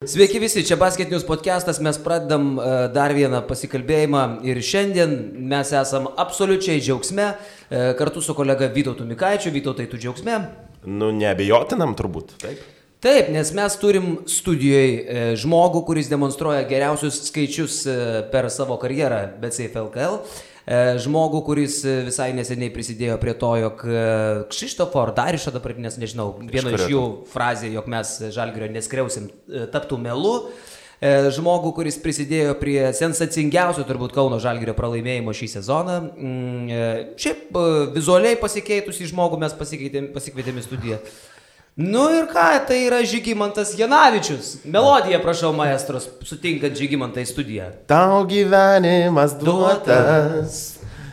Sveiki visi, čia Basket News podcastas, mes pradedam dar vieną pasikalbėjimą ir šiandien mes esam absoliučiai džiaugsme, kartu su kolega Vytautu Mikaičiu. Vytautai, tu džiaugsme? Nu, neabejotinam turbūt, taip. Taip, nes mes turim studijoje žmogų, kuris demonstruoja geriausius skaičius per savo karjerą BetSafe LKL. Žmogų, kuris visai neseniai prisidėjo prie to, jog Kšištofo ar Darišo dabar, nes nežinau, viena iš jų frazė, jog mes Žalgirio neskriausim, taptų melu. Žmogų, kuris prisidėjo prie sensacingiausio turbūt Kauno Žalgirio pralaimėjimo šį sezoną. Šiaip vizualiai pasikeitusi žmogų mes pasikvietėme į studiją. Nu ir ką, tai yra Žygimantas Janavičius. Melodija, prašau, maestros, sutinkant Žygimantą į studiją. Tau gyvenimas duotas.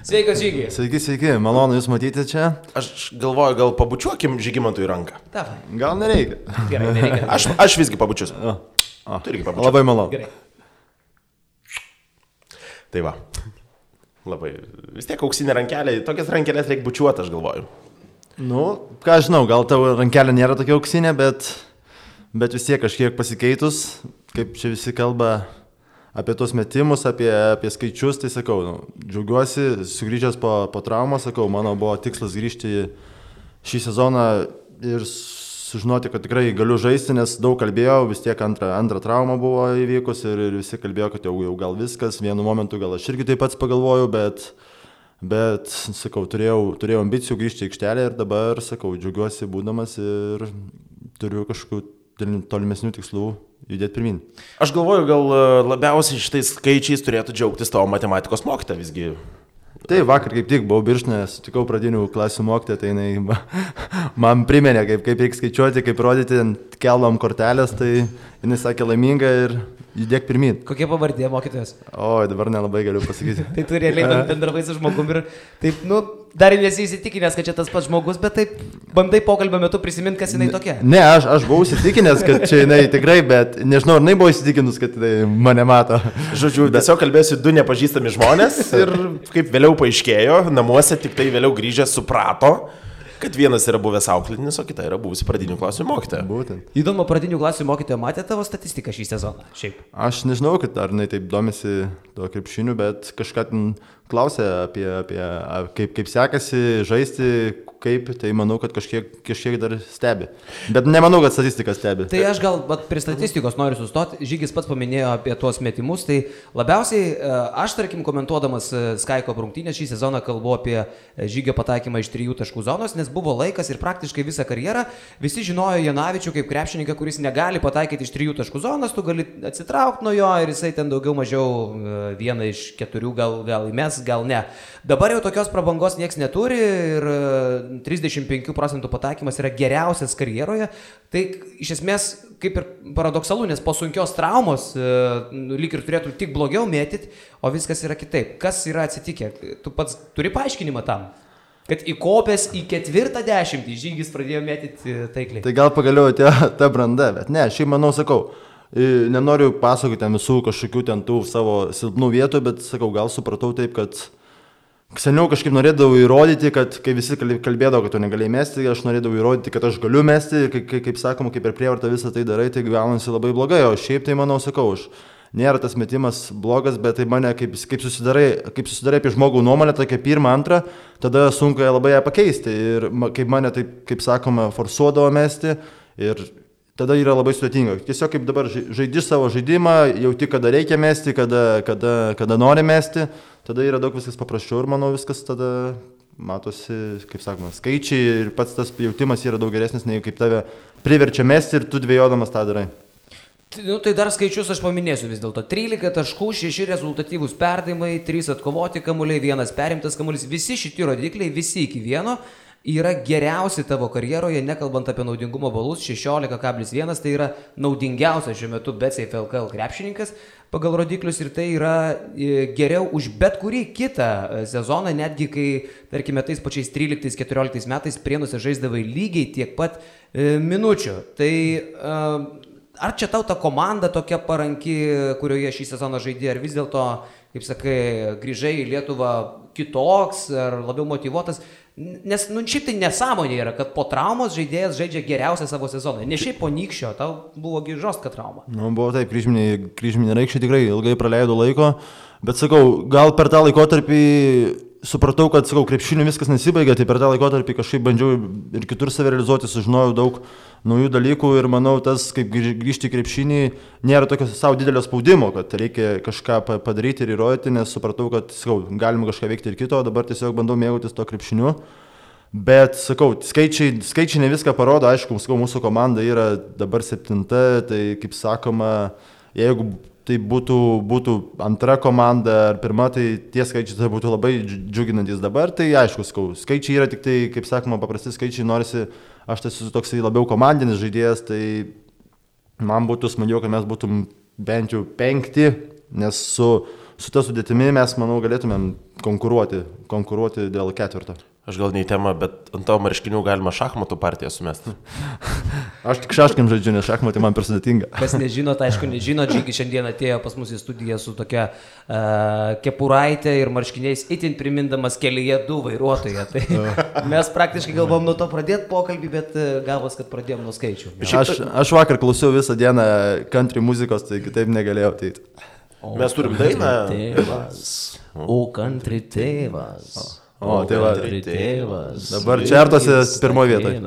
Sveikas, Žygi. Sveiki, malonu jūs matyti čia. Aš galvoju, gal pabučiuokim Žygimantui ranką. Davai. Gal nereikia. Gerai, nereikia. Aš visgi pabučiuosiu. Tu irgi pabučiuosiu. Labai malonu. Gerai. Tai va. Labai. Vis tiek auksinė rankelė, tokias rankelės reikia bučiuoti, aš galvoju. Nu, ką žinau, gal tavo rankelė nėra tokia auksinė, bet vis tiek kažkiek pasikeitus, kaip čia visi kalba apie tos metimus, apie skaičius, tai sakau, džiaugiuosi, sugrįžęs po traumos, sakau, mano buvo tikslas grįžti šį sezoną ir sužinoti, kad tikrai galiu žaisti, nes daug kalbėjau, vis tiek antra trauma buvo įvykus ir visi kalbėjo, kad jau gal viskas, vienu momentu gal aš irgi taip pats pagalvojau, bet sakau, turėjau ambicijų grįžti į aikštelę ir dabar, sakau, džiaugiuosi būdamas ir turiu kažkokių tolimesnių tikslų judėti pirmin. Aš galvoju, gal labiausiai šitais skaičiais turėtų džiaugtis tavo matematikos mokytoja visgi. Tai vakar kaip tik buvau Birštone, sutikau pradinių klasių mokytoją, tai jinai man priminė, kaip reikia skaičiuoti, kaip rodyti, keldom kortelės, tai jinai sakė laiminga ir judėk pirmin. Kokia pavardė mokytojas? O, dabar nelabai galiu pasakyti. Tai tu realiai bendravai su žmogum ir taip, dar nesi įsitikinęs, kad čia tas pats žmogus, bet taip bandai pokalbio metu prisiminti, kas jinai tokia. Ne, aš buvau įsitikinęs, kad čia jinai tikrai, bet nežinau, ar jinai buvo įsitikinus, kad jinai mane mato. Žodžiu, tiesiog kalbėsiu du nepažįstami žmonės ir kaip vėliau paaiškėjo, namuose tik tai vėliau grįžęs suprato, kad vienas yra buvęs auklėtinis, o kita yra buvusi pradinių klasių mokytoja. Būtent. Įdomu, pradinių klasių mokytoja matė tavo statistiką šį sezoną? Šiaip. Aš nežinau, kad ar jinai taip domisi tuo krepšiniu, bet kažką ten klausė apie kaip sekasi žaisti, tai manau, kad kažkiek dar stebi. Bet nemanau, kad statistika stebi. Tai aš gal prie statistikos noriu sustoti. Žygis pats paminėjo apie tuos metimus, tai labiausiai aš, tarkim, komentuodamas Skaiko rungtynės šį sezoną kalbu apie Žygio pataikymą iš 3 taškų zonos, nes buvo laikas ir praktiškai visą karjerą visi žinojo Janavičių kaip krepšininką, kuris negali pataikyti iš 3 taškų zonos, tu gali atsitraukti nuo jo ir jisai ten daugiau mažiau vieną iš 4 gal įmes, gal ne. Dabar jau tokios prabangos nieks neturi ir 35% pataikymas yra geriausias karjeroje. Tai iš esmės kaip ir paradoksalu, nes po sunkios traumos lyg ir turėtų tik blogiau mėtyti, o viskas yra kitaip. Kas yra atsitikę? Tu pats turi paaiškinimą tam? Kad įkopęs į 40 Žygis pradėjo mėtyti taikliai. Tai gal pagaliau atėjo ta branda, bet ne, šiaip manau, sakau, nenoriu pasakoti ten visų kažkokių ten tų savo silpnų vietų, bet sakau, gal supratau taip, kad seniau kažkaip norėdavau įrodyti, kad kai visi kalbėdavo, kad tu negalėjai mesti, aš norėdavau įrodyti, kad aš galiu mesti, kaip sakoma, kaip per prievartą visą tai darai, tai gaunasi labai blogai, o šiaip tai manau, sakau, nėra tas metimas blogas, bet tai mane kaip susidarai apie žmogų nuomonę, tokia pirmą, antrą, tada sunku labai ją pakeisti ir kaip mane taip, kaip sakoma, forsuodavo mesti ir tada yra labai sudėtinga. Tiesiog kaip dabar žaidi savo žaidimą, jauti, kada reikia mesti, kada nori mesti, tada yra daug viskas paprasčiau ir manau viskas tada matosi, kaip sakoma, skaičiai ir pats tas jautimas yra daug geresnis, nei kaip tave priverčia mesti ir tu dvejodamas tą darai. Tai dar skaičius aš paminėsiu vis dėlto. 13 taškų, 6 rezultatyvūs perdavimai, 3 atkovoti kamuoliai, 1 perimtas kamuolys. Visi šitie rodikliai, visi iki vieno, yra geriausi tavo karjeroje, nekalbant apie naudingumo balus, 16,1, tai yra naudingiausias šiuo metu BetSafe LKL krepšininkas pagal rodiklius ir tai yra geriau už bet kurį kitą sezoną, netgi kai, tarkime, tais pačiais 13-14 metais Prienuose žaisdavai lygiai tiek pat minučių. Tai ar čia tau ta komanda tokia paranki, kurioje šį sezoną žaidė, ar vis dėlto, kaip sakai, grįžai į Lietuvą kitoks ar labiau motyvuotas? Nes, šiaip tai nesąmonė yra, kad po traumos žaidėjas žaidžia geriausią savo sezoną. Ne šiaip po nykščio, tau buvo žostka trauma. Buvo taip, kryžminė raikščiai tikrai ilgai praleido laiko, bet sakau, gal per tą laikotarpį supratau, kad, krepšiniu viskas nesibaigė, tai per tą laikotarpį kažkaip bandžiau ir kitur save realizuoti, sužinojau daug naujų dalykų ir manau, tas, kaip grįžti į krepšinį, nėra tokio savo didelio spaudimo, kad reikia kažką padaryti ir įrodyti, nes supratau, kad, galima kažką veikti ir kito, dabar tiesiog bandau mėgautis to krepšiniu. Bet, skaičiai ne viską parodo, aišku, mūsų komanda yra dabar 7, tai, kaip sakoma, jeigu tai būtų antra komanda ar pirma, tai tie skaičiai tai būtų labai džiuginantis dabar, tai aišku, skaičiai yra tik tai, kaip sakoma, paprasti skaičiai, norisi, aš tai esu toksai labiau komandinis žaidėjas, tai man būtų smagiau, kad mes būtum bent jau 5, nes su ta sudėtimi mes, manau, galėtumėm konkuruoti dėl 4. Aš gal ne į temą, bet ant tavo marškinių galima šachmatų partiją sumesti. Aš tik šaškiam žaidžiu, nes šachmatai man per sudėtinga. Kas nežinot, aišku, nežinot, Žygis šiandien atėjo pas mus į studiją su tokia kepuraitė ir marškiniais itin primindamas kelyje 2 vairuotoją. Tai mes praktiškai galvom nuo to pradėti pokalbį, bet gavos, kad pradėjom nuo skaičių. Aš vakar klausiau visą dieną country muzikos, tai kitaip negalėjau ateiti. Mes turim dainą. O country tėvas. O, tai va, dabar čertose pirmoje vietoje.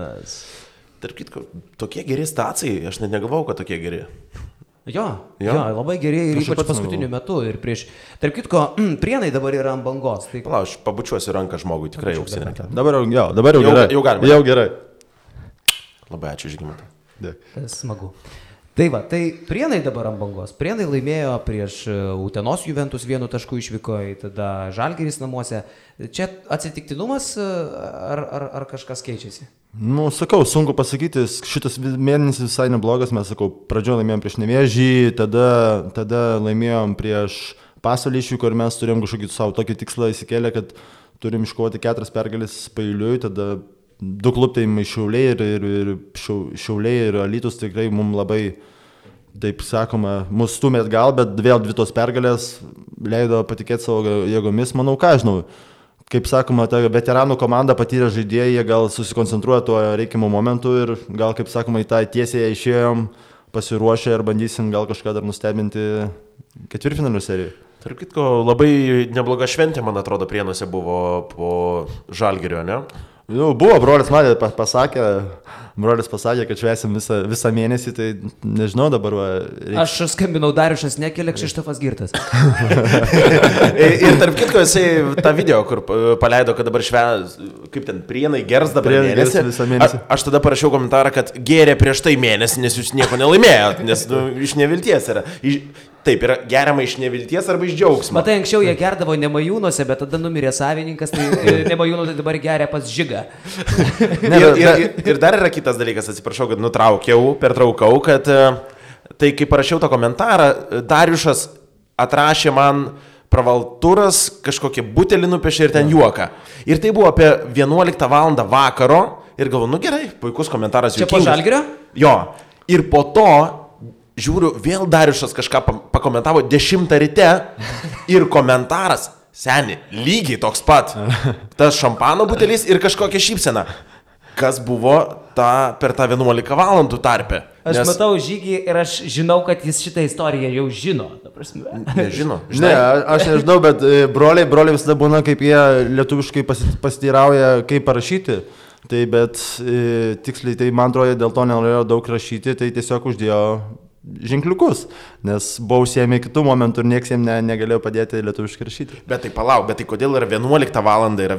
Tarp kitko, tokie geri stacijai, aš net negalvojau, kad tokie geri. Jo, labai geri ir ypač paskutiniu metu. Ir tarp kitko, Prienai dabar yra ant bangos. Tai... Pala, aš pabučiuosiu ranką žmogui, tikrai jau užsienė. Dabar jau gerai. Jau galima. Jau gerai. Labai ačiū, Žygimantai. Tai smagu. Tai va, tai Prienai dabar ant bangos. Prienai laimėjo prieš Utenos Juventus 1 tašku išvyko, tada Žalgiris namuose. Čia atsitiktinumas ar kažkas keičiasi? Sakau, sunku pasakyti, šitas mėnesis visai neblogas, mes, pradžioje laimėjom prieš Nevėžį, tada laimėjom prieš Pasvalį išvyko ir mes turėjom kažkokį savo tokį tikslą įsikėlę, kad turim iškovoti 4 pergalės paeiliui, tada 2 klubai Šiauliai ir Alytus tikrai mums labai, taip sakoma, mus stumėt gal, bet vėl 2 tos pergalės leido patikėti savo jėgomis, manau, ką žinau. Kaip sakoma, ta veteranų komanda patyrė žaidėjai, jie gal susikoncentruoja tuo reikiamu momentu ir gal, kaip sakoma, į tą tiesiai išėjom, pasiruošę ir bandysim gal kažką dar nustebinti 4-finalio serijoje. Tarp kitko, labai nebloga šventė, man atrodo, Prienuose buvo po Žalgirio, ne? Buvo, brolis man pasakė, kad švęsim visą mėnesį, tai nežinau dabar. Aš skambinau Dariušas Nekelė, Kšištofas Girtas. Ir tarp kitko, jisai tą video, kur paleido, kad dabar kaip ten, Prienai gers dabar mėnesį. Aš tada parašiau komentarą, kad gėrė prieš tai mėnesį, nes jūs nieko nelaimėjot, nes iš nevilties yra. Taip, yra geriama iš nevilties arba iš džiaugsmo. Matai, anksčiau jie gerdavo Nemajūnuose, bet tada numirė savininkas, tai Nemajūnų tai dabar geria pas Žigą. Ir dar yra kitas dalykas, atsiprašau, kad pertraukau, kad tai kai parašiau tą komentarą, Dariušas atrašė man pravalturas, kažkokį butelį nupiešė ir ten juoką. Ir tai buvo apie 11 val. Vakaro ir galvoju, gerai, puikus komentaras. Čia po Žalgirio? Jo, ir po to žiūriu, vėl Dariušas kažką pakomentavo 10 ryte ir komentaras, seni, lygiai toks pat. Tas šampano butelis ir kažkokia šypsena. Kas buvo per tą 11 valandų tarpę? Aš matau Žygį ir aš žinau, kad jis šitą istoriją jau žino. Nežino. Ne, aš nežinau, bet broliai visada būna, kaip jie lietuviškai pasiteirauja, kaip parašyti. Tai bet tiksliai, tai man atrodo, dėl to nenorėjo daug rašyti, tai tiesiog uždėjo ženkliukus, nes buvau užsiėmę kitų momentų ir nieks jiems negalėjo padėti lietuviškai rašyti. Bet tai kodėl yra 11 valandą, yra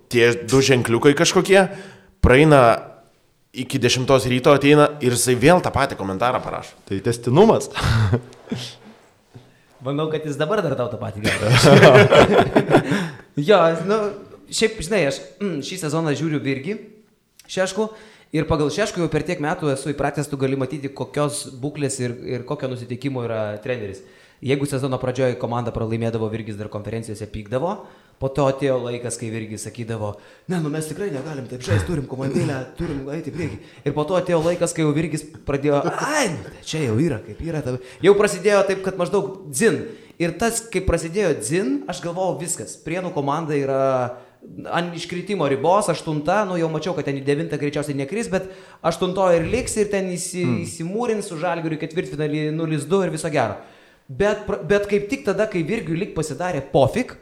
tie 2 ženkliukai kažkokie, praeina iki 10 ryto, ateina ir jisai vėl tą patį komentarą parašo. Tai tęstinumas. Manau, kad jis dabar dar tau tą patį gali. Jo, šiaip, žinai, aš šį sezoną žiūriu Virgį, Šeškų. Ir pagal Šeškų jau per tiek metų esu įpratęs, tu gali matyti, kokios būklės ir kokio nusiteikimo yra treneris. Jeigu sezono pradžioje komanda pralaimėdavo, Virgis dar konferencijose pykdavo, po to atėjo laikas, kai Virgis sakydavo, mes tikrai negalim taip žaisti, turim komandėlę, turim eiti į priekį. Ir po to atėjo laikas, kai jau Virgis pradėjo, čia jau yra, kaip yra. Jau prasidėjo taip, kad maždaug dzin. Ir tas, kai prasidėjo dzin, aš galvojau viskas. Prienų komanda yra ant iškritimo ribos, 8, nu jau mačiau, kad ten į 9 greičiausiai nekris, bet 8 ir liks ir ten įsimūrins su Žalgiriu ketvirtfinalį 0-2 ir viso gero. Bet kaip tik tada, kai Virgiui lyg pasidarė pofik,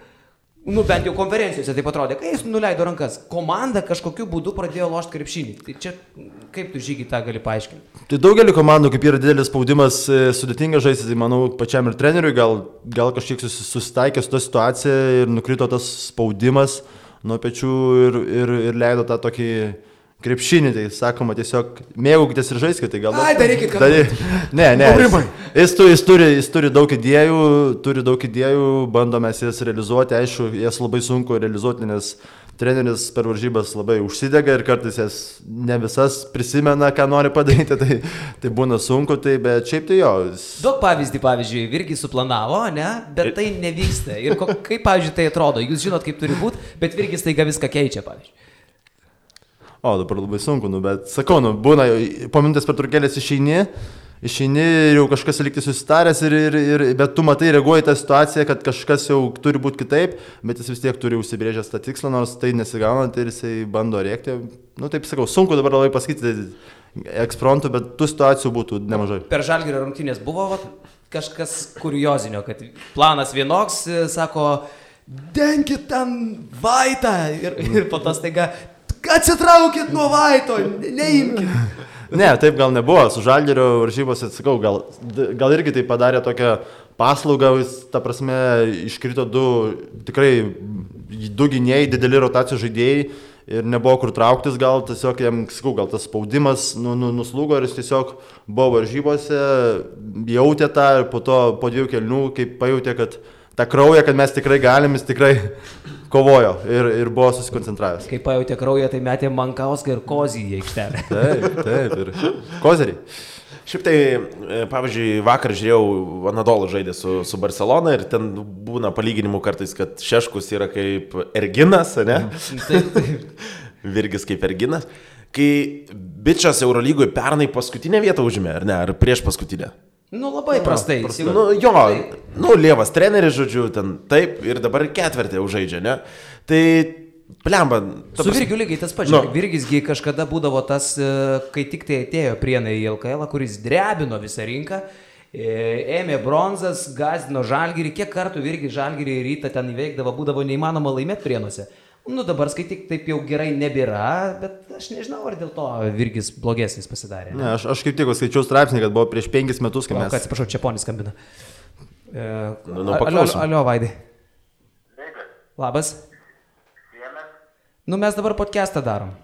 nu bent jau konferencijose taip atrodė, kai jis nuleido rankas, komanda kažkokiu būdu pradėjo lošti krepšinį. Tai čia kaip tu Žygi tą gali paaiškinti? Tai daugelį komandų, kaip yra didelis spaudimas, sudėtinga žaisti, tai manau pačiam ir treneriui gal kažkiek susitaikė su tą situaciją ir nukrito tas spaudimas nuo pečių ir leido tą tokį krepšinį, tai sakoma tiesiog mėgaukitės ir žaiskite, tai gal... Ai, darykit, kad... Ne, jis turi daug idėjų, bandome jas realizuoti, aišku, jas labai sunku realizuoti, nes treneris per varžybas labai užsidega ir kartais jas ne visas prisimena, ką nori padaryti, tai būna sunku, bet šiaip tai jo. Daug pavyzdžiui, Virgis suplanavo, ne, bet tai nevyksta. Ir kaip, pavyzdžiui, tai atrodo, jūs žinot, kaip turi būti, bet Virgis taiga viską keičia, pavyzdžiui. O, dabar labai sunku, bet sakau, būna, po minutės pertraukėlės išeini ir jau kažkas likti susitaręs, bet tu matai, reaguoji tą situaciją, kad kažkas jau turi būti kitaip, bet jis vis tiek turi užsibrėžęs tą tikslą, nors tai nesigaunant ir jisai bando rėkti. Nu, taip sakau, sunku dabar labai pasakyti eksfrontų, bet tų situacijų būtų nemažai. Per Žalgirio rungtynės buvo kažkas kuriozinio, kad planas vienoks, sako, denkit ten Vaitą ir po to staiga, atsitraukit nuo Vaito, neimkit. Ne, taip gal nebuvo, su Žalgirio varžybose, sakau, gal irgi tai padarė tokią paslaugą, ta prasme, iškrito du gynėjai, dideli rotacijų žaidėjai ir nebuvo kur trauktis, gal tiesiog jam, sakau, gal tas spaudimas nuslūgo ir jis tiesiog buvo varžybose, jautė tą ir po 2 kėlinių, kaip pajautė, kad tą kraują, kad mes tikrai galim, jis tikrai kovojo ir buvo susikoncentravęs. Kai pajautė kraują, tai metė Mankauską ir Kozį į aikštelę. Taip, ir kozeriai. Šiaip tai, pavyzdžiui, vakar žiūrėjau, Anadolu žaidė su Barcelona ir ten būna palyginimų kartais, kad Šeškus yra kaip Erginas, ne? Taip. Virgis kaip Erginas. Kai bičas Eurolygoje pernai paskutinę vietą užėmė, ar ne? Ar prieš paskutinę? Nu, labai prastai. Lievas treneris, žodžiu, ten taip ir dabar ketvirtį užžaidžia, ne? Tai, blemba. Su Virgiu lygiai tas pats. Virgisgi kažkada būdavo tas, kai tik tai atėjo Prienai į LKL, kuris drebino visą rinką, ėmė bronzas, gazdino Žalgirį, kiek kartų Virgis Žalgirį į rytą ten įveikdavo, būdavo neįmanoma laimėti Prienuose. Nu, dabar skaityk, taip jau gerai nebėra, bet aš nežinau, ar dėl to Virgis blogesnis pasidarė. Ne, aš kaip tik skaičiau straipsnį, kad buvo prieš 5 metus, kai mes... Atsiprašau, Čeponis skambina. Paklausom. Alio, Vaidai. Labas. Nu, mes dabar podcastą darom.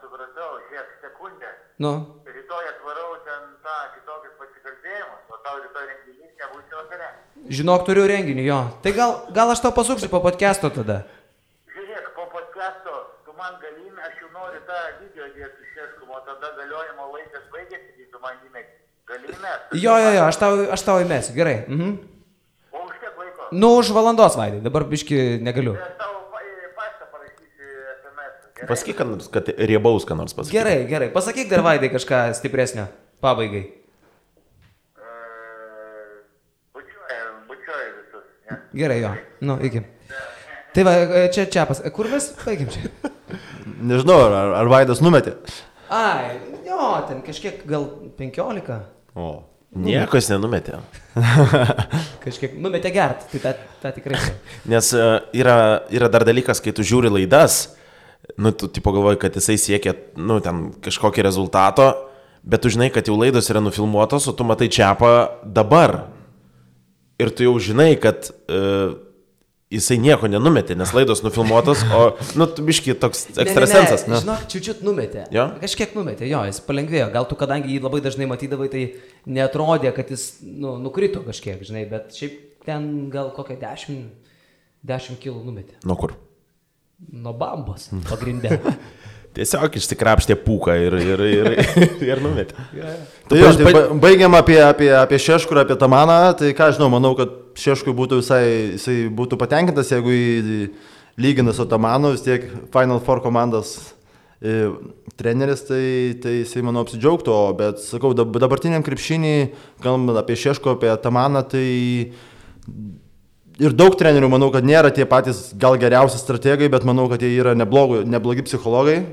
Supratau, žiūrėk, sekundę. Nu. Rytoj atvarau ten tą kitokius pasikalbėjimus, o tau rytoj renginys nebūsi vakare. Žinok, turiu renginį, jo. Tai gal aš tau pasuksiu po podcasto tada. Žiūrėk, po podcasto tu man galime, aš jau noriu tą video dėti su Šeškum, o tada galiojimo laikas baigėsi, tai tu man įmėsi. Galime? Jo, aš tau įmėsiu, gerai. O už kiek laiko? Nu, už valandos, Vaidai, dabar biški negaliu. Aš tau paštą parašysiu SMS. Pasakyk, kad riebaus, ką nors pasakyk. Gerai. Pasakyk dar, Vaidai, kažką stipresnio pabaigai. Bučiuoju visus. Ja. Gerai, jo. Nu, iki. Tai va, čia pas. Kur mes baigiam čia? Nežinau, ar Vaidas numetė. Ai, jo, ten kažkiek gal 15. O. Niekas nenumetė. Kažkiek numetė gert, tai tą tikrai. Nes yra dar dalykas, kai tu žiūri laidas, nu, tu tipo galvoji, kad jisai siekia, nu, ten kažkokį rezultato, bet tu žinai, kad jau laidos yra nufilmuotos, o tu matai Čiapą dabar. Ir tu jau žinai, kad jisai nieko nenumetė, nes laidos nufilmuotos, o, nu, tu biški toks ekstrasensas. Ne. Žinok, čiučiut numetė. Jo? Kažkiek numetė, jo, jis palengvėjo. Gal tu, kadangi jį labai dažnai matydavai, tai neatrodė, kad jis, nu, nukrito kažkiek, žinai, bet šiaip ten gal kokią 10 kilų numetė. Nuo kur? Nuo bambos pagrindė. Tiesiog išsikrapštė pūką ir numetė. Tai jo, baigiam apie Šeškų ir apie Tamaną, tai ką žinau, manau, kad Šeškui būtų jisai būtų patenkintas, jeigu jį lygina su Tamanu, vis tiek Final Four komandos treneris, tai jisai, manau, apsidžiaugtų, bet, sakau, dabartiniam krepšinį, kalbant apie Šeškų, apie Tamaną, tai ir daug trenerių, manau, kad nėra tie patys gal geriausi strategai, bet manau, kad jie yra neblogi psichologai,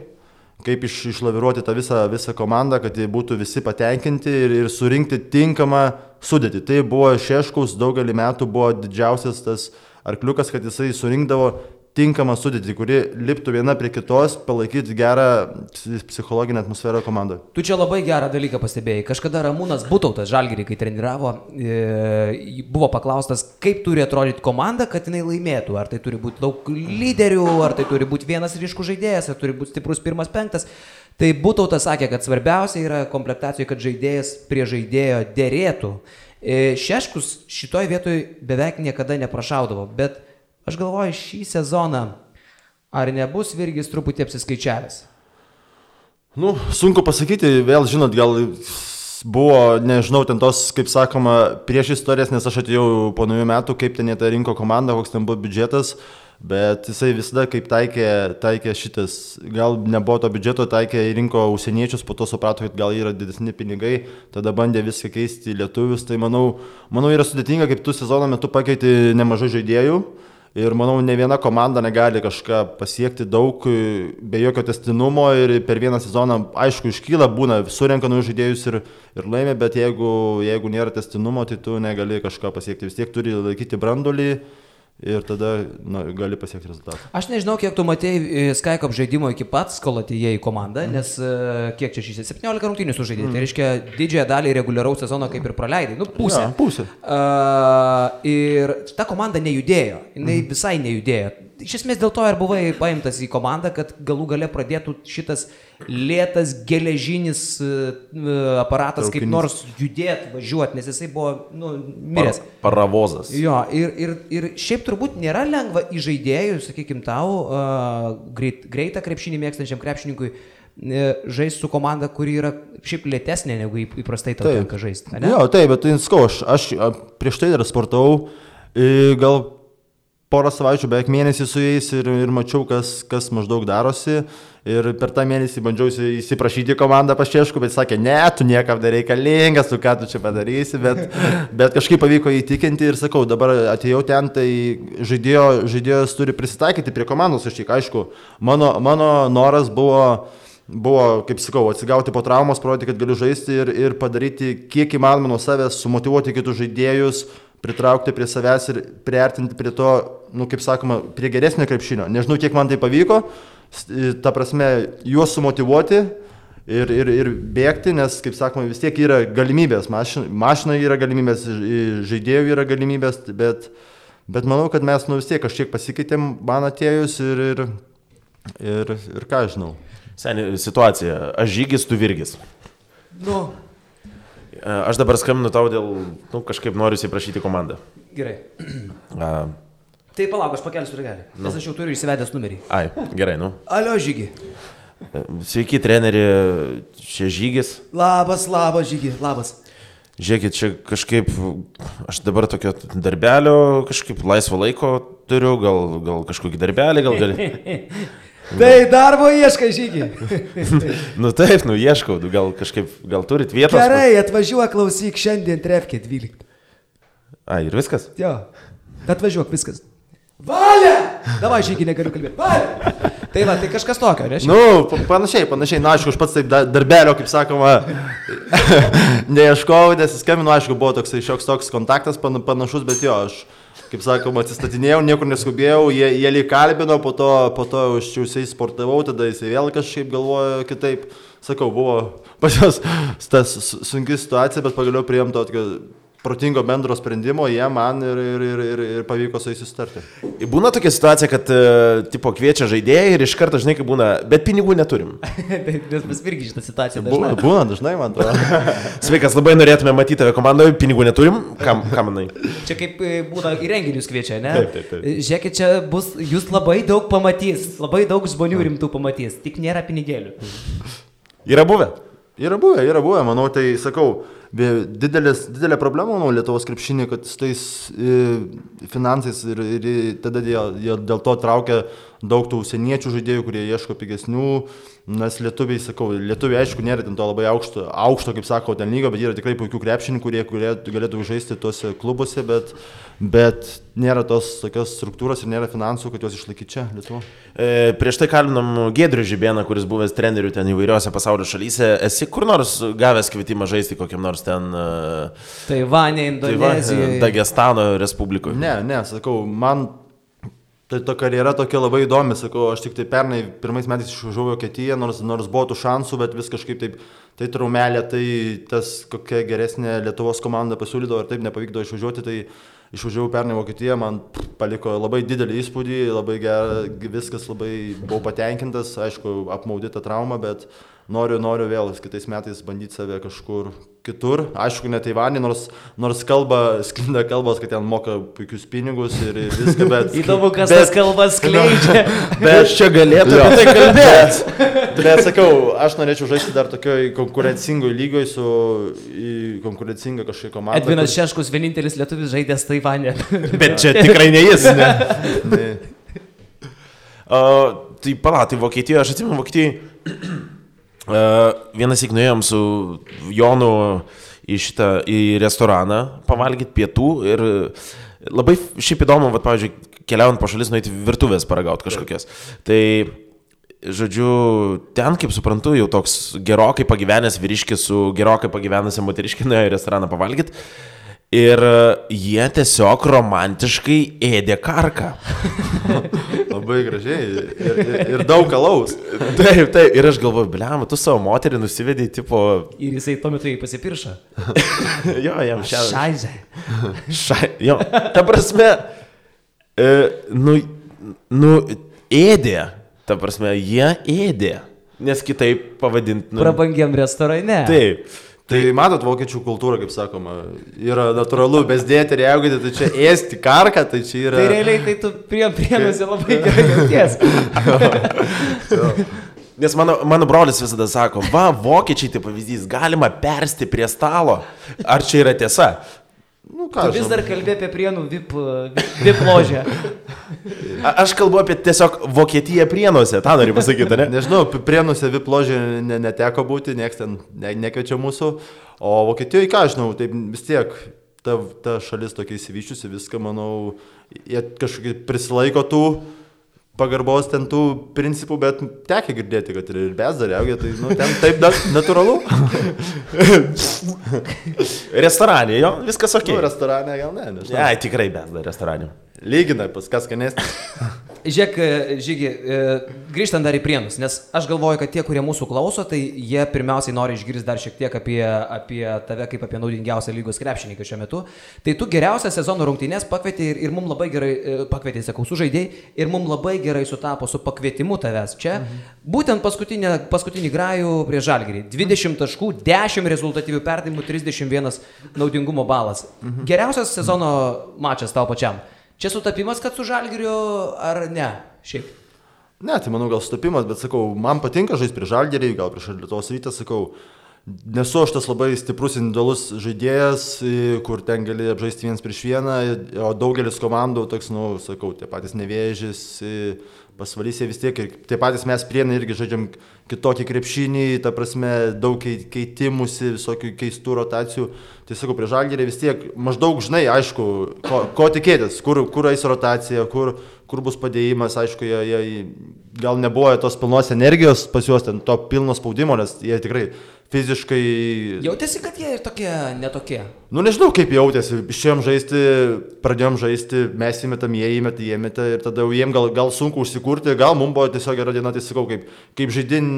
kaip išlaviruoti tą visą komandą, kad jie būtų visi patenkinti ir surinkti tinkamą sudėtį. Tai buvo Šeškaus daugelį metų buvo didžiausias tas arkliukas, kad jisai surinkdavo tinkamą sudėtį, kuri liptų viena prie kitos, palaikyti gerą psichologinę atmosferą komandoje. Tu čia labai gerą dalyką pastebėjai. Kažkada Ramūnas Butautas Žalgirį, kai treniravo, buvo paklaustas, kaip turi atrodyti komanda, kad jinai laimėtų. Ar tai turi būti daug lyderių, ar tai turi būti vienas ryškus žaidėjas, ar turi būti stiprus 1-5. Tai Butautas sakė, kad svarbiausia yra komplektacijoje, kad žaidėjas prie žaidėjo derėtų. Šeškus šitoj vietoj beveik niekada neprašaudavo, bet aš galvoju, šį sezoną, ar nebus Virgis truputį apsiskaičiavęs? Sunku pasakyti, vėl žinot, gal buvo, nežinau, ten tos, kaip sakoma, prieš istorijas, nes aš atėjau po naujų metų, kaip ten jie tą rinko komandą, koks ten buvo biudžetas, bet jisai visada kaip taikė šitas, gal nebuvo to biudžeto, taikė rinko užsieniečius, po to suprato, kad gal yra didesni pinigai, tada bandė viską keisti į lietuvius, tai manau yra sudėtinga, kaip tu sezono metu pakeiti nemažai žaidėjų. Ir manau, ne viena komanda negali kažką pasiekti daug be jokio tęstinumo ir per vieną sezoną, aišku, iškyla, būna, surenka naujus žaidėjus ir laimė, bet jeigu nėra tęstinumo, tai tu negali kažką pasiekti. Vis tiek turi laikyti branduolį ir tada gali pasiekti rezultatą. Aš nežinau, kiek tu matėjai Skycop žaidimo iki pats, kol atėjai į komandą, nes kiek čia šis 17 rungtynių sužaidė. Tai reiškia, didžiąją dalį reguliaraus sezono kaip ir praleidai. Pusę. Ja, pusę. Ir ta komanda nejudėjo. Jinai visai nejudėjo. Iš esmės dėl to ir buvai paimtas į komandą, kad galų gale pradėtų šitas lėtas geležinis aparatas kaip nors judėti, važiuoti, nes jisai buvo miręs. Paravozas. Jo, ir šiaip turbūt nėra lengva į žaidėjų, sakykim tau, greitą krepšinį mėgstančiam krepšininkui žaisti su komanda, kuri yra šiaip lėtesnė negu įprastai tau tenka žaisti. Jo, taip, bet skau, aš prieš tai dar sportavau, gal porą savaičių, beveik mėnesį su jais ir mačiau, kas maždaug darosi. Ir per tą mėnesį bandžiau įsiprašyti komandą pas Šeškų, bet sakė, ne, tu niekam nereikalingas, tu ką tu čia padarysi, bet kažkaip pavyko įtikinti ir sakau, dabar atėjau ten, tai žaidėjas turi prisitaikyti prie komandos, aš tik aišku, mano noras buvo, kaip sakau, atsigauti po traumos, parodyti, kad galiu žaisti ir padaryti kiek įmanoma nuo savęs, sumotyvuoti kitus žaidėjus, pritraukti prie savęs ir priartinti prie to, kaip sakoma, prie geresnio krepšinio. Nežinau, kiek man tai pavyko, ta prasme, juos sumotyvuoti ir bėgti, nes, kaip sakoma, vis tiek yra galimybės, mašinai yra galimybės, žaidėjų yra galimybės, bet manau, kad mes vis tiek kažkiek pasikeitėm man atėjus ir ką žinau. Seniai, situacija, aš Žygis, tu Virgis. Aš dabar skambinu tau dėl, kažkaip noriu įsiprašyti komandą. Gerai. Tai palauk, aš pakelsiu ragelį, nes aš jau turiu įsivedęs numerį. Ai, gerai, Alio, Žygi. Sveiki, treneri, čia Žygis. Labas, Žygi, labas. Žiūrėkit, čia kažkaip, aš dabar tokio darbelio, kažkaip laisvo laiko turiu, gal kažkokį darbelį, gal gali... Tai darbo ieškai, Žygi. Taip, ieškau, gal turit vietos. Gerai, atvažiuok, klausyk, šiandien trefkė 12. Ai, ir viskas? Jo, atvažiuok, viskas. Valia! Davai, Žygi, negaliu kalbėti. Valia! Tai va, tai kažkas tokio, ne? Panašiai, aišku, aš pats taip darbelio, kaip sakoma, neieškau, nes skambinu, aišku, buvo toks toks kontaktas panašus, bet jo, aš... Kaip sakoma, atsistatinėjau, niekur neskubėjau, jie lyg kalbino, po to užčiausiai sportavau, tada jisai vėl kažkaip galvojo kitaip. Sakau, buvo pas jos tas sunki situacija, bet pagaliau priėjom tokio protingo bendro sprendimo, jie man ir pavyko su jais susitarti. Būna tokia situacija, kad tipo kviečia žaidėjai ir iš karto, žinai, kaip būna, bet pinigų neturim. Nes mes irgi šitą situaciją dažnai. Būna dažnai, man to. Sveikas, labai norėtume matyti tave komandoje, pinigų neturim, ką manai? Čia kaip būna į renginius kviečia, ne? Taip. Žiūrėkit, čia bus, jūs labai daug pamatys, labai daug žmonių rimtų pamatys, tik nėra pinigėlių. Yra buvę? Yra buvę, manau, tai sakau, didelė problema, manau, Lietuvos krepšinį, kad su tais finansais ir tada jie dėl to traukia daug tų užsieniečių žaidėjų, kurie ieško pigesnių, nes lietuviai, sakau, lietuviai aišku nėra ten to labai aukšto kaip sako, ten lygo, bet yra tikrai puikių krepšininkų, kurie galėtų žaisti tuose klubuose, bet nėra tos tokios struktūros ir nėra finansų, kad juos išlaikyti čia, Lietuvo. Prieš tai kalbinom Giedrių Žibėną, kuris buvęs trenerių ten įvairiose pasaulio šalyse. Esi kur nors gavęs kvietimą žaisti kokiam nors ten... Taivane, Indonezijoje. Dagestano Respublikoje? Ne, sakau, man... Tai ta karjera tokia labai įdomi, sakau, aš tik tai pernai pirmais metais išvažiavau į Vokietiją, nors buvo tų šansų, bet vis kažkaip taip, tai traumelė, tai tas kokia geresnė Lietuvos komanda pasiūlydavo ir taip nepavykdavo išvažiuoti, tai išvažiavau pernai į Vokietiją, man paliko labai didelį įspūdį, labai gera, viskas labai buvau patenkintas, aišku, apmaudyta trauma, bet noriu vėl kitais metais bandyti save kažkur kitur, aišku, ne Taivanį, nors sklinda kalbos, kad ten moka puikius pinigus ir viską, bet... Įdomu, kas tas kalbas skleidžia. Bet čia galėtų apie tai kalbėti. Bet sakau, aš norėčiau žaisti dar tokioj konkurencingoj lygoj su konkurencinga kažkokia komanda. Edvinas Šeškus vienintelis lietuvis žaidęs Taivane. Bet čia tikrai ne jis, ne? Tai tai Vokietijoje, aš atsimenu Vokietijoje, vienas įknuėjom su Jonu į restoraną pavalgyti pietų ir labai šiaip įdomu, pavyzdžiui, keliaujant po šalis nueiti virtuvės paragauti kažkokias. Tai, žodžiu, ten, kaip suprantu, jau toks gerokai pagyvenęs vyriškis su gerokai pagyvenusia moteriškė nuėjo į restoraną pavalgyti. Ir jie tiesiog romantiškai ėdė karką. Labai gražiai. Ir daug alaus. Taip. Ir aš galvoju, bliam, tu savo moterį nusivedai, tipo... Ir jisai tuo metu jį pasipiršo. Jo, jam Šaizė. Jo, ta prasme, ėdė. Ta prasme, jie ėdė. Nes kitaip pavadinti... Prabangiam restorane. Taip. Tai matot, vokiečių kultūra, kaip sakoma, yra natūralu, bezdėti ir jaugyti, tai čia ėsti karką, tai čia yra... Tai realiai, tai tu prienusi labai gerai jauties. Nes mano brolis visada sako, vokiečiai tai pavyzdys, galima persti prie stalo. Ar čia yra tiesa? Nu, ką, tu vis dar kalbė apie Prienų VIP ložę. Aš kalbu apie tiesiog Vokietiją Prienuose, tą noriu pasakyti, ne? Nežinau, Prienuose VIP ložė neteko būti, nieks ten nekviečia mūsų, o Vokietijoje, ką žinau, tai vis tiek ta šalis tokia įsivyščiusi, viską, manau, jie kažkaip prisilaiko tų pagarbos ten tų principų, bet tekia girdėti, kad ir bezdariaugia, tai ten taip natūralu. Restoranė, jo, viskas ok. Restoranė gal ne, nežinau. Ne, tikrai bezdar restoranė. Lyginai, pas kas skanesnis. Žiūrėk, Žygi, grįžtant dar į Prienus, nes aš galvoju, kad tie, kurie mūsų klauso, tai jie pirmiausiai nori išgirsti dar šiek tiek apie tave kaip apie naudingiausią lygos krepšininką šiuo metu. Tai tu geriausią sezono rungtynes pakvietė ir mums labai gerai, sužaidėjai ir mums labai gerai sutapo su pakvietimu tavęs čia. Būtent paskutinį grajų prie Žalgirį. 20 taškų, 10 rezultatyvių perdavimų, 31 naudingumo balas. Geriausias sezono mačas tau pačiam. Čia sutapimas, kad su Žalgiriu ar ne? Šiaip. Ne, tai manau gal sutapimas, bet sakau, man patinka žaisti prie Žalgirį, gal prieš Lietuvos Rytą, sakau, nesu aš tas labai stiprus individualus žaidėjas, kur ten gali apžaisti vienas prieš vieną, o daugelis komandų, toks, sakau, tie patys Nevėžis, Pasvalys vis tiek, ir tie patys mes Prienai irgi žaidžiam kitokį krepšinį, ta prasme, daug keitimusi, visokių keistų rotacijų. Tai sakau, prie Žalgirį vis tiek maždaug žinai, aišku, ko tikėtis, kur eis rotacija, kur bus padėjimas, aišku, jie gal nebuvo tos pilnos energijos pas juos, ten to pilno spaudimo, nes jie tikrai fiziškai... Jautėsi, kad jie ir tokie, netokie? Nežinau, kaip jautėsi. Išėjom žaisti, pradėjom žaisti, mes įmetam, jie įmeta ir tada jiem gal sunku užsikurti, gal mums buvo tiesiog gera diena, tai sakau, kaip žaidin,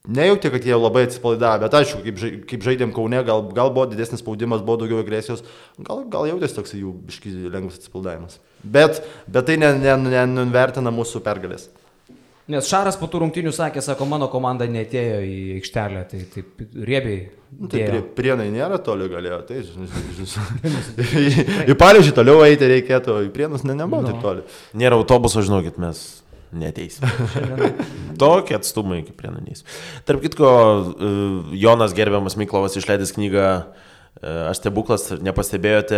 nejauti, kad jie labai atsipalaidavo, bet aišku, kaip žaidėm Kaune, gal buvo didesnis spaudimas, buvo daugiau agresijos, gal jautėsi toks jų biški lengvas atsipalaidavimas. Bet tai nenuvertina mūsų pergalės. Nes Šaras po tų rungtynių sakė, sako, mano komanda neatėjo į aikštelę, tai taip riebiai. Tai Prienai nėra toli galėjo, tai į Panevėžį toliau eiti reikėtų, į Prienus nebuvo taip toli. Nėra autobuso, žinokit, mes neteisime. Tokie atstumai iki Prienų neis. Tarp kitko, Jonas gerbiamas Miklovas išleidęs knygą Aš stebuklas, nepastebėjote,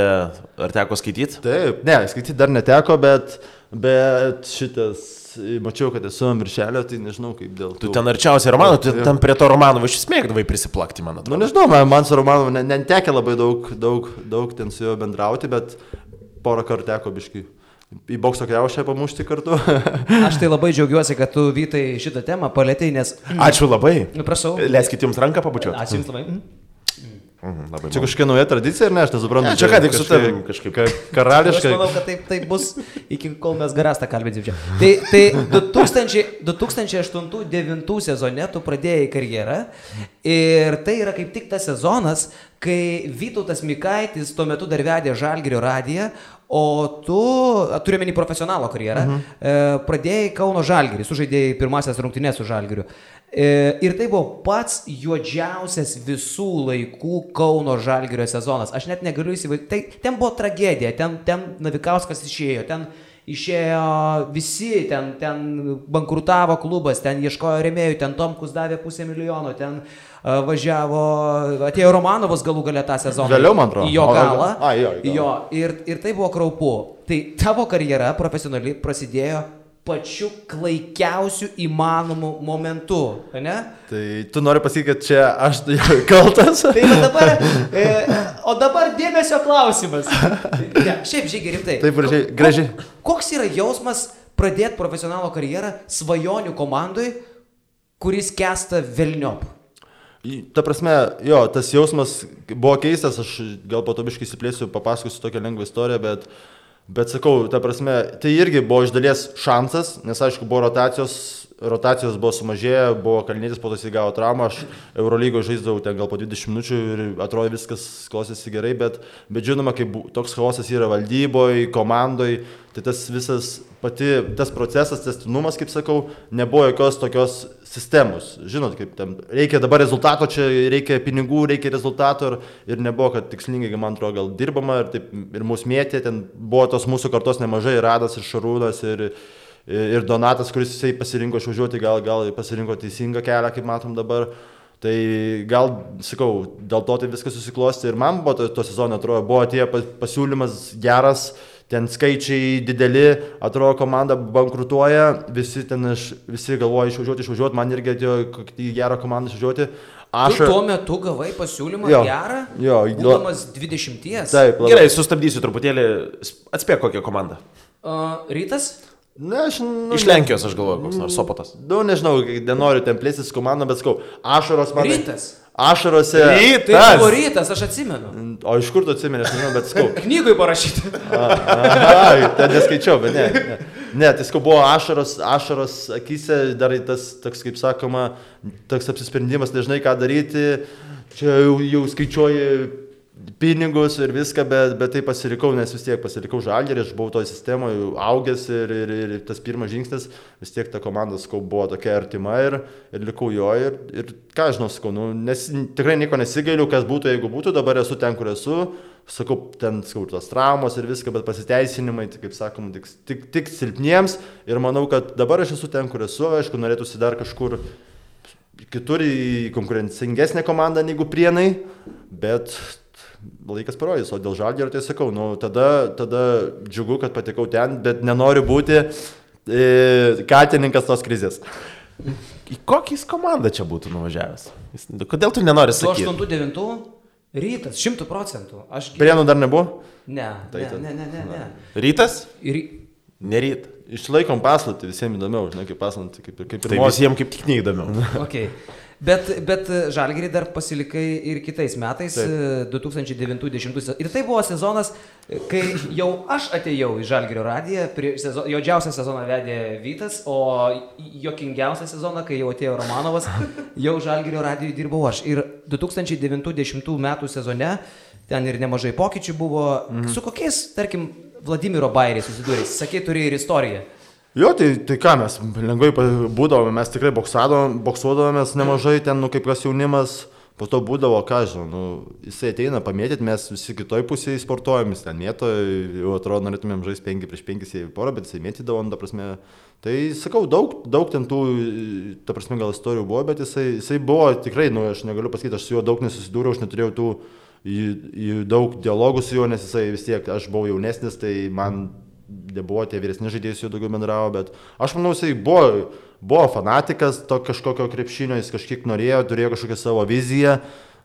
ar teko skaityti? Taip, ne, skaityti dar neteko, bet Bet šitas, mačiau, kad esu ant viršelio, tai nežinau kaip dėl to. Tu ten arčiausiai Romano, tu ten prie to Romanovo iš smėgdavai prisiplakti, man atrodo. Nu nežinau, man su Romanovu netekė labai daug ten su juo bendrauti, bet porą kartų teko biškai į bokso kriaušę pamušti kartu. Aš tai labai džiaugiuosi, kad tu, Vytai, šitą temą palėtei, nes... Ačiū labai. Prašau. Leiskit jums ranką pabučiuoti. Ačiū jums labai. Labai Čia kažkokia nauja tradicija, ar ne, aš nesuprantu. Čia ką tik su tavim kažkaip. Karališkai. Aš manau, kad taip bus, iki kol mes Garastą kalbėsim čia. Tai 2008-2009 sezone tu pradėjai karjerą ir tai yra kaip tik tas sezonas, kai Vytautas Mikaitis tuo metu dar vedė Žalgirio radiją, o tu, turiu menį profesionalo karjerą, pradėjai Kauno Žalgirį, sužaidėjai pirmasias rungtynes su Žalgiriu. Ir tai buvo pats juodžiausias visų laikų Kauno Žalgirio sezonas. Aš net negaliu įsivaizduoti. Ten buvo tragedija, ten Navikauskas išėjo, ten išėjo visi, ten bankrutavo klubas, ten ieškojo rėmėjų, ten Tomkus davė $500,000, ten važiavo, atėjo Romanovas galų gale tą sezoną. Vėliau, man atrodo. Į jo galą. Jo. Ir tai buvo kraupu. Tai tavo karjera profesionali prasidėjo pačiu klaikiausiu įmanomu momentu, ne? Tai tu nori pasakyti, kad čia aš kaltas? O dabar dėmesio klausimas. Ne, šiaip Žygi rimtai. Taip, gražiai. Koks yra jausmas pradėti profesionalo karjerą svajonių komandai, kuris kesta velniop? Ta prasme, jo, tas jausmas buvo keistas, aš gal po to biškai įsiplėsiu, papasakosiu tokią lengvą istoriją, bet sakau, ta prasme, tai irgi buvo iš dalies šansas, nes aišku, buvo rotacijos buvo sumažėję, buvo Kalnietis, po to jis įgavo traumą, aš Eurolygoje žaisdavau ten gal po 20 minučių ir atrodo viskas klostėsi gerai, bet žinoma, kai toks chaosas yra valdyboje, komandoje, tai tas visas tas procesas, tęstinumas, kaip sakau, nebuvo jokios tokios sistemos. Žinot, kaip ten reikia dabar rezultato, čia reikia pinigų, reikia rezultato ir nebuvo, kad tikslingai, man atrodo, gal dirbama ir mūsų mėtė, ten buvo tos mūsų kartos nemažai, Radas ir Šarūnas ir Donatas, kuris jisai pasirinko išvažiuoti, gal pasirinko teisingą kelią, kaip matom dabar. Tai gal, sakau, dėl to tai viskas susiklosti ir man buvo to sezono, atrodo, buvo atėjo pasiūlymas geras, ten skaičiai dideli, atrodo, komanda bankrutuoja, visi galvoja išvažiuoti, man irgi atėjo į gerą komandą išvažiuoti. Tu tuo metu gavai pasiūlymą gerą, būdamas 20. Taip, gerai, sustabdysiu truputėlį, atspėk kokią komandą. Rytas? Ne, iš Lenkijos aš galvoju, koks nors Sopotas. Nežinau, nenoriu ten plėstis komandą, bet skau, ašaros man... Rytas? Ašarose... Tai buvo Rytas, aš atsimenu. O iš kur tu atsimeni, aš nežinau, bet skau. Knygui parašyti. Ten neskaičiau, bet ne. Ne, tai skau buvo ašaros akise, dar tas, toks, kaip sakoma, toks apsisprendimas, nežinai ką daryti, čia jau skaičiuoji pinigus ir viską, bet tai pasirikau, nes vis tiek pasirikau Žalgirį, aš buvau toje sistemoje augęs ir tas pirmas žingsnis, vis tiek ta komanda, sakau, buvo tokia artima ir likau jo ir ką žinau, sakau, nes tikrai nieko nesigailiu, kas būtų, jeigu būtų, dabar esu ten, kur esu, sakau, ten, sakau, tos traumos ir viską, bet pasiteisinimai, tai, kaip sakom, tik silpniems ir manau, kad dabar aš esu ten, kur esu, aišku, norėtųsi dar kažkur kitur į konkurencingesnę komandą negu Prienai, bet laikas parodys, o dėl Žalgirio tai sakau, tada džiugu, kad patekau ten, bet nenoriu būti katininkas tos krizės. Į kokį komandą čia būtų nuvažiavęs? Kodėl tu nenori sakyti? 8-9 Rytas, 100%. Prienų dar nebuvo? Ne. Rytas? Neryt. Išlaikom paslaptį, visiems įdomiau, žinai, kaip paslaptį, kaip ir tai visiems kaip tik neįdomiau. Okay. Bet Žalgirį dar pasilikai ir kitais metais, 2009-2010. Ir tai buvo sezonas, kai jau aš atėjau į Žalgirio radiją, juodžiausią sezoną vedė Vytas, o juokingiausią sezoną, kai jau atėjo Romanovas, jau Žalgirio radijoje dirbau aš. Ir 2009-2010 metų sezone ten ir nemažai pokyčių buvo. Su kokiais, tarkim, Vladimiro Bairiai susidūrė? Sakei, turi ir istoriją. Jo, tai ką mes lengvai būdavome, mes tikrai boksuodavomės nemažai ten, kaip kas jaunimas, po to būdavo, ką žinau, jisai ateina pamėtyti, mes visi kitoj pusėje sportuojam, jis ten mėto, jau atrodo, norėtumėm žaisti 5-5 į porą, bet jisai mėtydavo, ta prasme, tai sakau, daug ten tų, ta prasme, gal istorijų buvo, bet jisai buvo tikrai, aš negaliu pasakyti, aš su juo daug nesusidūriau, aš neturėjau tų daug dialogų su juo, nes jisai vis tiek, aš buvau jaunesnis, tai man nebuvo tie vyresni žaidėjai, jau daugiau bendravo, bet aš manau, jisai buvo fanatikas to kažkokio krepšinio, jis kažkiek norėjo, turėjo kažkokią savo viziją,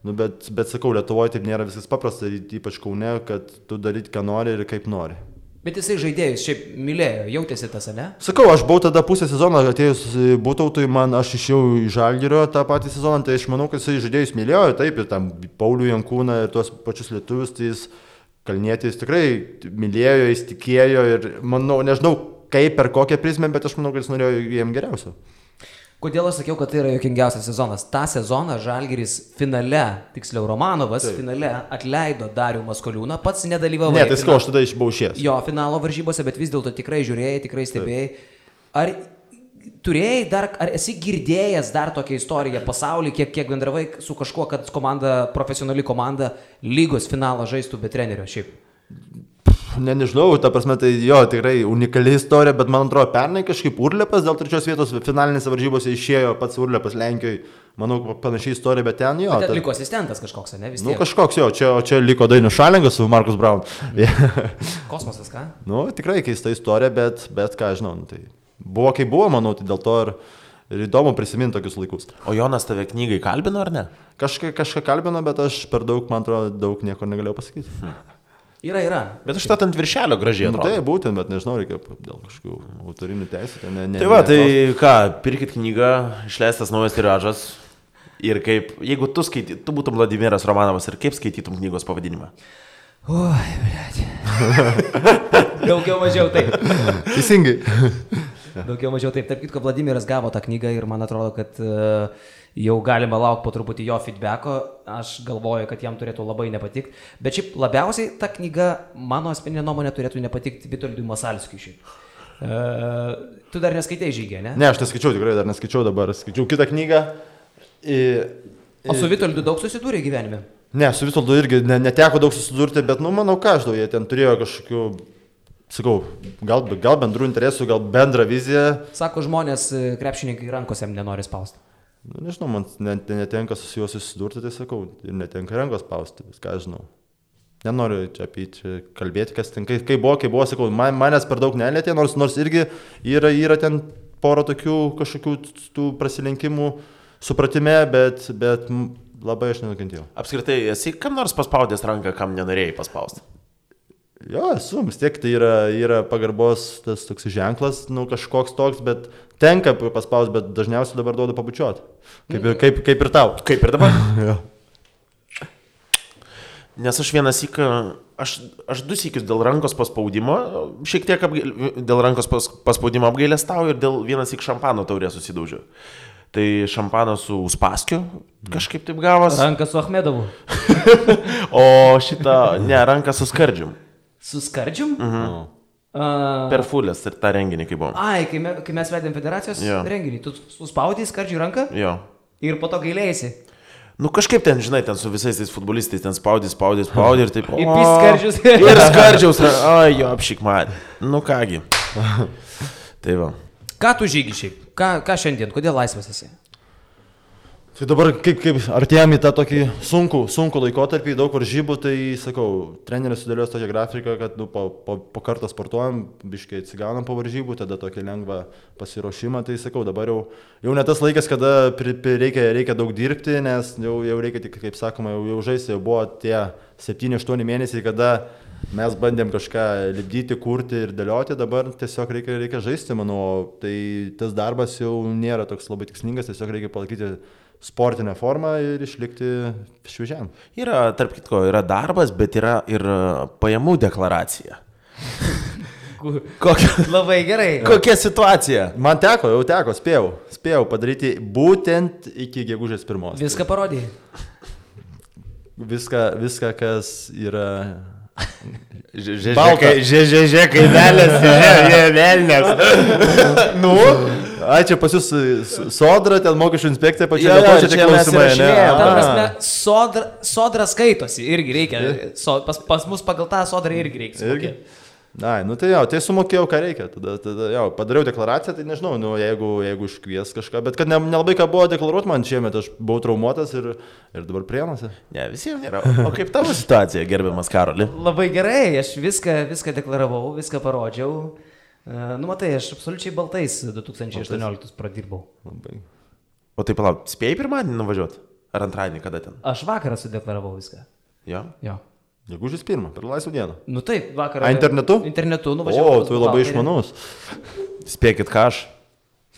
nu, bet sakau, Lietuvoje taip nėra viskas paprasta, ypač Kaune, kad tu daryt, ką nori ir kaip nori. Bet jisai žaidėjus šiaip mylėjo, jautėsi tas, ne? Sakau, aš buvau tada pusę sezono atėjus Būtautui, aš išėjau į Žalgirio tą patį sezoną, tai aš manau, kad jisai žaidėjus mylėjo, taip, ir tam Paulių Jankūną ir tuos pačius lietuvius, tai jis Kalnietis tikrai mylėjo, jis tikėjo ir manau, nežinau kaip, per kokią prizmę, bet aš manau, kad jis norėjo jiem geriausio. Kodėl aš sakiau, kad tai yra juokingiausias sezonas? Ta sezoną Žalgiris finale, tiksliau Romanovas, finale atleido Darių Maskoliūną, pats nedalyvavo. Ne, tai sakau, aš tada buvau išėjęs. Jo, finalo varžybose, bet vis dėlto tikrai žiūrėjai, tikrai stebėjai. Ar turėjai dar, ar esi girdėjęs dar tokią istoriją pasaulyje, kiek bendravai su kažkuo, kad profesionali komanda lygos finalą žaistų be trenerio šiaip? Nežinau, ta prasme, tai jo, tikrai unikali istorija, bet man atrodo, pernai kažkaip Urlepas dėl 3 vietos finalinėse varžybose išėjo pats Urlepas Lenkijoje, manau, panašiai istorija, bet ten jo. Bet liko asistentas kažkoks, ne? Vis tiek. Nu, kažkoks jo, čia liko Dainius Šalingas su Markus Braun. Kosmosas, ką? Nu, tikrai keista istorija, bet ką žinau, tai buvo kaip buvo, manau, tai dėl to ir įdomu prisiminti tokius laikus. O Jonas tave knygai kalbino, ar ne? Kažką kalbino, bet aš per daug, man atrodo, daug nieko negalėjau pasakyti. Yra. Bet aš ant viršelio gražiai atrodo. Tai būtent, bet nežinau, reikia dėl kažkokių autorinių teisų. Tai va, tai ką, pirkit knygą, išleistas naujas tiražas ir kaip, jeigu tu būtum Vladimiras Romanovas ir kaip skaitytum knygos pavadinimą? Oi, blėt. Daugiau mažiau taip. Teisingai. Daugiau mažiau taip. Tarp kitko, Vladimiras gavo tą knygą ir man atrodo, kad jau galima laukti po truputį jo feedbacko. Aš galvoju, kad jam turėtų labai nepatikti. Bet šiaip labiausiai ta knyga, mano asmeninė nuomonė, turėtų nepatikti Vitoldui Masalskiui šiaip. Tu dar neskaitai Žygį, ne? Ne, aš neskaičiau, tikrai dar neskaičiau dabar. Skaičiau kitą knygą. O su Vitoldu daug susidūrė gyvenime? Ne, su Vitoldu irgi neteko daug susidurti, bet, manau, ką aš daug, jie ten turėjo kažkokių, sakau, gal bendrų interesų, gal bendrą viziją. Sako, žmonės, krepšininkai rankose nenori spausti. Nu, nežinau, man netenka su juo susidurti, tai sakau, ir netenka rankos spausti, viską žinau. Nenoriu čia apie čia kalbėti, kas ten, kai buvo, sakau, manęs per daug nelėtė, nors irgi yra ten pora tokių kažkokių tų prasilenkimų supratime, bet labai aš nenukentėjau. Apskritai, esi kam nors paspaudęs ranką, kam nenorėjai paspausti? Jo, esu, vis tiek tai yra pagarbos tas toks ženklas, nu kažkoks toks, bet tenka paspausti, bet dažniausiai dabar duodu pabučiuoti. Kaip ir tau. Kaip ir dabar? Jo. Nes aš vienas syką, aš 2 sykius dėl rankos paspaudimo, šiek tiek dėl rankos paspaudimo apgailestauju ir dėl vienas syk šampano taurė susidaužiu. Tai šampanas su Uspaskiu kažkaip taip gavos. Ranka su Achmedovu. O ranka su Skardžium. Su Skardžium? Per Fulės ir tą renginį, kai buvom. Ai, kai mes vedėm federacijos renginį, tu suspaudai Skardžiui ranką? Jo. Ir po to gailėjasi. Nu kažkaip ten, žinai, ten su visais tais futbolistais, ten spaudai ir taip. Ir Skardžius. Ir Skardžiaus, ai jo, apšik man. Nu kągi. Tai va. Ką tu Žygi šiaip? Ką šiandien? Kodėl laisvas esi? Tai dabar kaip artėjame į tą tokį sunkų laikotarpį, daug varžybų, tai sakau, treneris sudėlios tokią grafiką, kad po kartą sportuojam, biškai atsigaunam po varžybų, tada tokį lengvą pasiruošimą, tai sakau, dabar jau ne tas laikas, kada reikia daug dirbti, nes jau reikia tik, kaip sakoma, jau žaisti, jau buvo tie 7-8 mėnesiai, kada mes bandėm kažką lipdyti, kurti ir dėlioti, dabar tiesiog reikia žaisti, manau, tai tas darbas jau nėra toks labai tikslingas, tiesiog reikia palaikyti sportinę formą ir išlikti šviežiam. Tarp kitko, yra darbas, bet yra ir pajamų deklaracija. Labai gerai. Kokia situacija? Man jau teko, spėjau padaryti būtent iki gegužės 1. Viską parodėjai? Viską, kas yra... Žežė kaimelės, velnės. Nu? Ai, čia pas jūs Sodra, ten mokesčių inspekcija pačia, čia klausimai, ne? Ta prasme, Sodra skaitosi, irgi reikia, pas mus pagal tą Sodrą irgi reikia. Na, nu tai jau, tai sumokėjau, ką reikia. Tada jau, padariau deklaraciją, tai nežinau, nu, jeigu iškvies kažką, bet kad nelabai ką buvo deklaruoti man šiemet, aš buvau traumuotas ir dabar Prienuose. Ne, visiems nėra. O kaip tavo situacija, gerbiamas Karoli? Labai gerai, aš viską deklaravau, viską parodžiau. Nu, matai, aš absoliučiai baltais 2018 pradirbau. Labai. O tai palauk, spėjai pirmadienį nuvažiuoti? Ar antradienį, kada ten? Aš vakarą sudeklaravau viską. Jo? Jo. Gegužės 1, per laisvą dieną. Nu taip, vakarą. Internetu? Internetu nuvažiavau. O, tu labai išmanus. Spėkit, ką aš?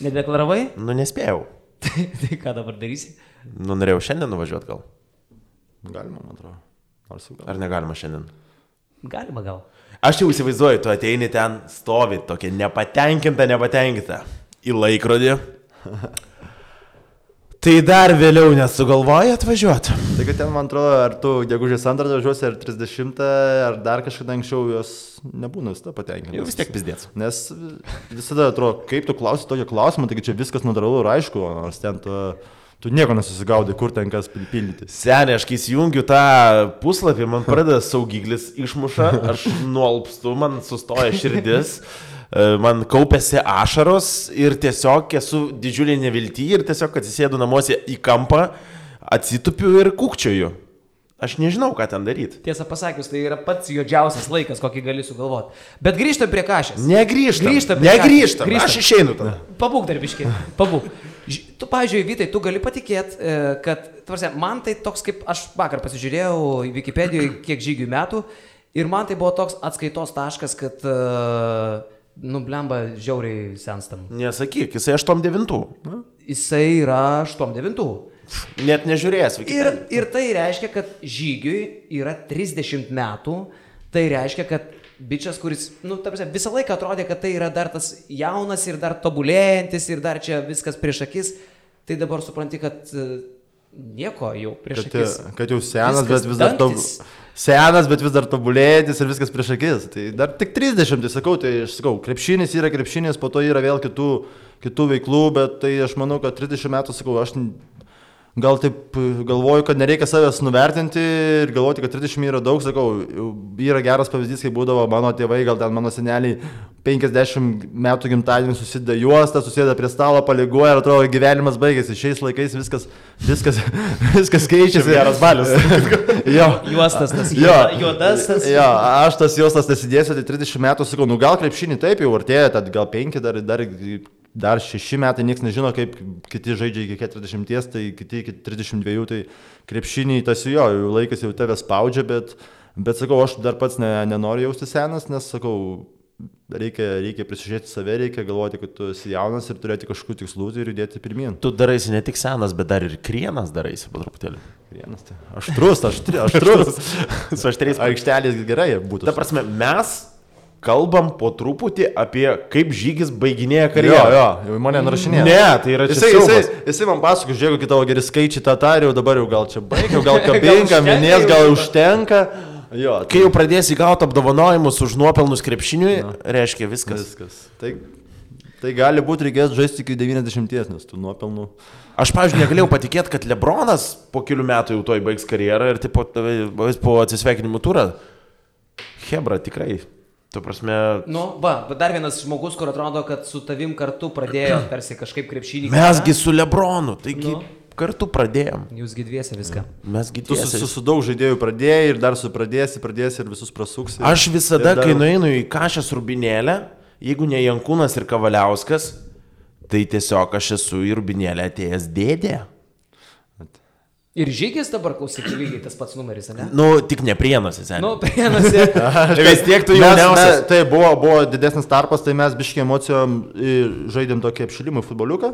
Nedeklaravai? Nu, nespėjau. Tai ką dabar darysi? Nu, norėjau šiandien nuvažiuoti gal. Galima, man atrodo. Ar negalima šiandien? Galima gal. Aš jau įsivaizduoju, tu ateini ten, stovi tokia nepatenkinta į laikrodį. Tai dar vėliau nesugalvoji atvažiuoti. Tai kad ten, man atrodo, ar tu gegužės 2 važiuosi, ar 30, ar dar kažkada anksčiau jos nebūna visada patenkinti. Jau vis tiek pizdėts. Nes visada atrodo, kaip tu klausi tokio klausimo, taigi čia viskas natūralu ir aišku, nors ten tu nieko nesusigaudai, kur ten kas pripildyti. Seniai, aš kai įjungiu tą puslapį, man pradeda saugiklis išmuša, aš nuolpstu, man sustoja širdis. Man kaupėsi ašaros ir tiesiog esu didžiulį neviltį ir tiesiog atsisėdu namuose į kampą, atsitupiu ir kukčioju. Aš nežinau, ką ten daryti. Tiesą pasakius, tai yra pats juodžiausias laikas, kokį gali sugalvoti. Bet grįžtam prie Kašės. Negrįžtam. Aš išeinu tada. Pabūk darbiškai, pabūk. Tu, pavyzdžiui, Vytai, tu gali patikėti, kad, tvarsia, man tai toks kaip, aš vakar pasižiūrėjau į Wikipedijoje, kiek žygių metų, ir man tai buvo toks atskaitos taškas, kad, blemba, žiauriai senstam. Nesakyk, jisai 8-9. Jisai yra 8-9. Net nežiūrėjęs Wikipedijoje. Ir tai reiškia, kad žygiui yra 30 metų, tai reiškia, kad bičias, kuris, visą laiką atrodė, kad tai yra dar tas jaunas ir dar tobulėjantis ir dar čia viskas prieš akis, tai dabar supranti, kad nieko jau prieš akis. Kad jau senas, bet vis dar tobulėjantis ir viskas prieš akis. Tai dar tik 30, tai aš sakau, krepšinis yra krepšinis, po to yra vėl kitų veiklų, bet tai aš manau, kad 30 metų, sakau, aš gal taip galvoju, kad nereikia savęs nuvertinti ir galvoti, kad 30 yra daug, sakau, yra geras pavyzdys, kai būdavo mano tėvai, gal ten mano seneliai 50 metų gimtadienį susideda juostą, susėda prie stalo, paliguoja ir atrodo gyvenimas baigėsi. Šiais laikais viskas keičiasi. Geras balius. Jo. Juostas tas, juodas tas. Jo, aš tas juostas nesidėsiu, tai 30 metų, sakau, gal krepšinį taip jau artėja, tad gal 5, dar 6 metai, niekas nežino, kaip kiti žaidžia iki 40, tai kiti iki 32, tai krepšinį tas jo, laikas jau tave spaudžia, bet sakau, aš dar pats nenoriu jausti senas, nes sakau, reikia prisižiūrėti save, reikia galvoti, kad tu esi jaunas ir turėti kažkokių tikslų ir judėti pirmyn. Tu daraisi ne tik senas, bet dar ir krienas daraisi po truputėlį. Krienas, tai aštrus. Su aštriais aikštelės gerai būtų. Ta prasme, mes kalbam po truputį apie kaip žygis baiginėja karjerą. Jo, mane nurašinėja. Ne, tai yra čia siaubas. Jisai man pasako, žiūrėk, kai tavo geri skaičiai tą tariau, dabar jau gal čia baigiau, gal kabinka, minės, gal užtenka. Jo, kai jau pradėsi gauti apdovanojimus už nuopelnus krepšiniui, reiškia viskas. Tai gali būti reikės žaisti iki 90, nes tų nuopelnų. Aš, pavyzdžiui, negalėjau patikėti, kad Lebronas po kelių metų jau toj baigs karjerą ir po atsisveikinimų turą. Hebra, tikrai. Tu prasme... Dar vienas žmogus, kur atrodo, kad su tavim kartu pradėjo tarsi kažkaip krepšinį. Mesgi su Lebronu, taigi kartu pradėjom. Jūsgi dviese viską. Mesgi dviese. Tu su daug žaidėjų pradėjai ir dar pradėsi ir visus prasuksi. Aš visada, kai nueinu į Kašės Rubinėlę, jeigu ne Jankūnas ir Kavaliauskas, tai tiesiog aš esu į Rubinėlę atėjęs dėdė. Ir žygis dabar, klausyk, lygiai tas pats numeris, ne? Tik ne Prienuose, seniai. Prienuose. Vis tiek tu jauniausias. Tai buvo didesnis tarpas, tai mes biškiai emocijom žaidėm tokį apšilimą futboliuką.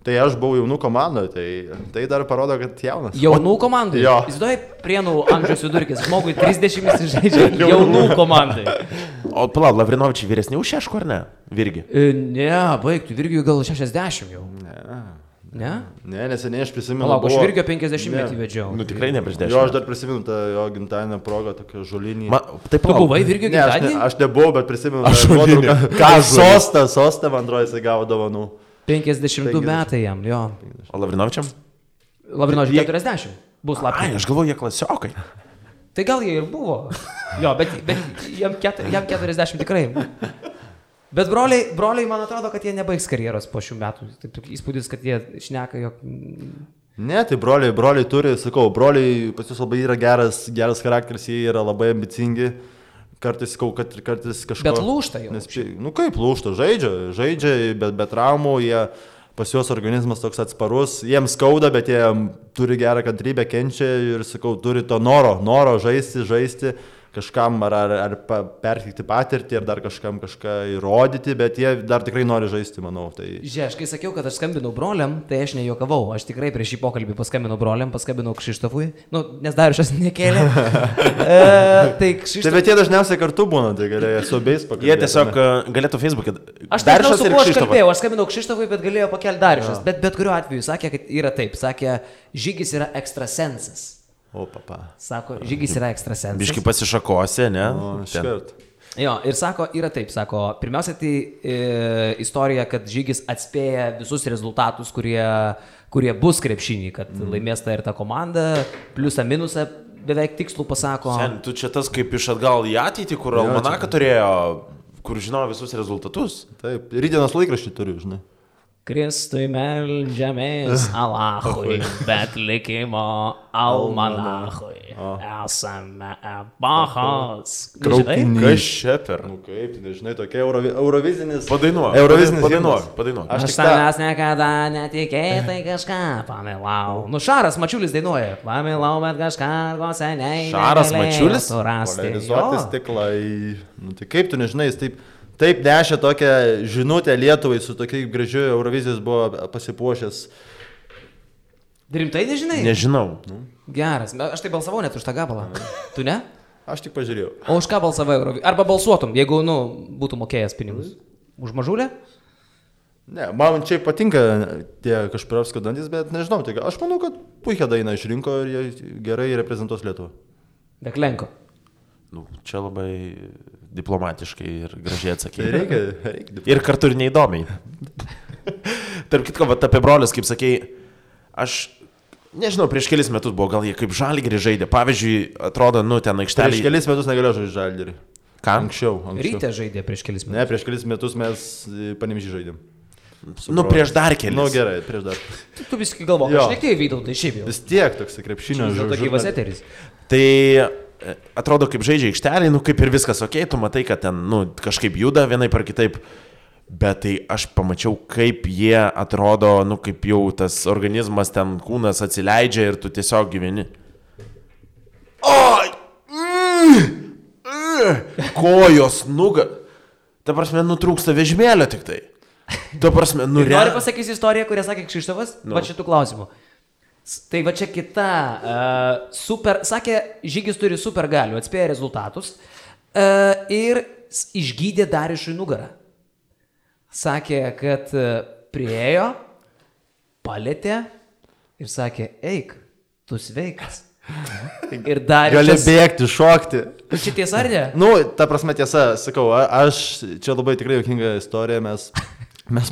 Tai aš buvau jaunų komandoje, tai dar parodo, kad jaunas. Jaunų komandai? Jo. Įsivaizduoji, Prienų amžiaus vidurkis, žmogui 30 žaidžia jaunų komandai. O palauk, Lavrinovičiai vyresni už Šeško, ar ne? Virgi? Ne, baigtų, Virgiui gal 60 jau. Ne? Ne, neseniai aš prisimenu. Palauk, aš Virgio 50 metį vedžiau. Tikrai ne prieš 10. Jo, aš dar prisimenu tą jo gimtadienio progą, tokią žolinį. Taip, tu buvai Virgio gimtadienį? Aš nebuvau, bet prisimenu tą nuotrauką. Sostą, man atrodo, jisai gavo dovanų. 52 metai jam, jo. O Lavrinovičiam? Lavrinovičiam 40. Bus lapkritį. Aš galvoju, jie klasiokai. Tai gal jie ir buvo. Jo, bet jam 40 tikrai. Bet broliai, man atrodo, kad jie nebaigs karjeros po šių metų. Taip įspūdis, kad jie šneka, jog... Ne, tai broliai turi, sakau, broliai pas jūs labai yra geras charakteris, jie yra labai ambicingi. Kartais, sakau, kad kartais kažko... Bet lūžta jau. Nu kaip lūžta, žaidžia, bet be traumų, jie pas juos organizmas toks atsparus, jiems skauda, bet jie turi gerą kantrybę, kenčia ir, sakau, turi to noro žaisti. Kažkam ar perteikti patirtį, ar dar kažkam kažką įrodyti, bet jie dar tikrai nori žaisti, manau. Tai... Žiūrėk, kai sakiau, kad aš skambinau broliam, tai aš nejuokavau. Aš tikrai prieš šį pokalbį paskambinau broliam, paskambinau Kšištofui, nes Dariušas nekėlė. Tai bet jie dažniausiai kartu būna, tai galėjo su abiejais pakalbėti. Jie tiesiog galėtų Facebook'e. Aš nežinau, su kuo aš kalbėjau, aš skambinau Kšištofui, bet galėjo pakelti Dariušas. Bet kuriuo atveju sakė, kad yra taip. Sakė, Žygis yra ekstrasensas. O, papa. Sako, Žygis yra ekstrasensas. Biški pasišakose, ne? O, škart. Jo, ir sako, yra taip, sako, pirmiausia, tai istorija, kad Žygis atspėja visus rezultatus, kurie bus krepšinį, kad laimės ta ir ta komanda, pliusą, minusą, beveik tikslų pasako. Sen, tu čia tas kaip iš atgal į ateitį, kur almanaką turėjo, kur žinojo visus rezultatus. Taip, rytdienos laikraštį turiu, žinai. Kristui meldžiamės Alachui, bet likimo almanachui. Esame epochos. Traukiniai. Kas čia per? Nu kaip, nežinai, tokia eurovizinis... Padainuok. Aš tavęs niekada netikėtai kažką pamilau. Nu, Šaras Mačiulis dainuoja. Pamilau, bet kažką ko seniai. Šaras Mačiulis? Polarizuoti stiklai. Nu, tai kaip tu nežinai, jis taip nešė tokią žinutę Lietuvai, su tokiai gražiu Eurovizijos buvo pasipuošęs. Rimtai nežinai? Nežinau. Geras, aš tai balsavau net už tą gabalą. Tu ne? Aš tik pažiūrėjau. O už ką balsavai Eurovizijos? Arba balsuotum, jeigu, būtų mokėjęs pinigus. Už Mažulę? Ne, man čia patinka tie Kašpirovskio dantis, bet nežinau, tai aš manau, kad puikia daina išrinko ir jie gerai reprezentuos Lietuvą. Deklenko. Nu, čia labai diplomatiškai ir gražiai atsakė. Reikia. Ir kartu ir neįdomiai. Tarp kitko, apie brolius, kaip sakei, aš nežinau, prieš kelis metus buvo, gal jie kaip Žalgirį žaidė. Pavyzdžiui, atrodo, ten aikštelė. Prieš kelis metus negalėjo žaisti Žalgirį. Ką? Anksčiau. Ryte žaidė prieš kelis metus. Ne, prieš kelis metus mes Panevėžį žaidėm. Prieš dar kelis. Gerai, prieš dar. Tu viskį galvo, aš nekėjai veidau, tai šiaip jau. Vis tiek toks krepšinio žaidėjas. Tai gyvas eteris. Tai atrodo, kaip žaidžia aikštelį, kaip ir viskas ok, tu matai, kad ten, kažkaip juda vienaip ar kitaip, bet tai aš pamačiau, kaip jie atrodo, kaip jau tas organizmas ten kūnas atsileidžia ir tu tiesiog gyveni. Oi! Kojos, ta prasme, nutrūksta vežimėlio tik tai. Ta prasme, Noriu pasakyti istoriją, kurią sakė Kšištofas, va šitų klausimų. Tai va čia kita, sakė, Žygis turi super galių, atspėja rezultatus ir išgydė Dariušui nugarą. Sakė, kad priėjo, palėtė ir sakė, eik, tu sveikas. Ir Dariušas... Gali bėgti, šokti. Čia tiesa ar ne? Ta prasme tiesa, sakau, aš čia labai tikrai juokinga istorija, mes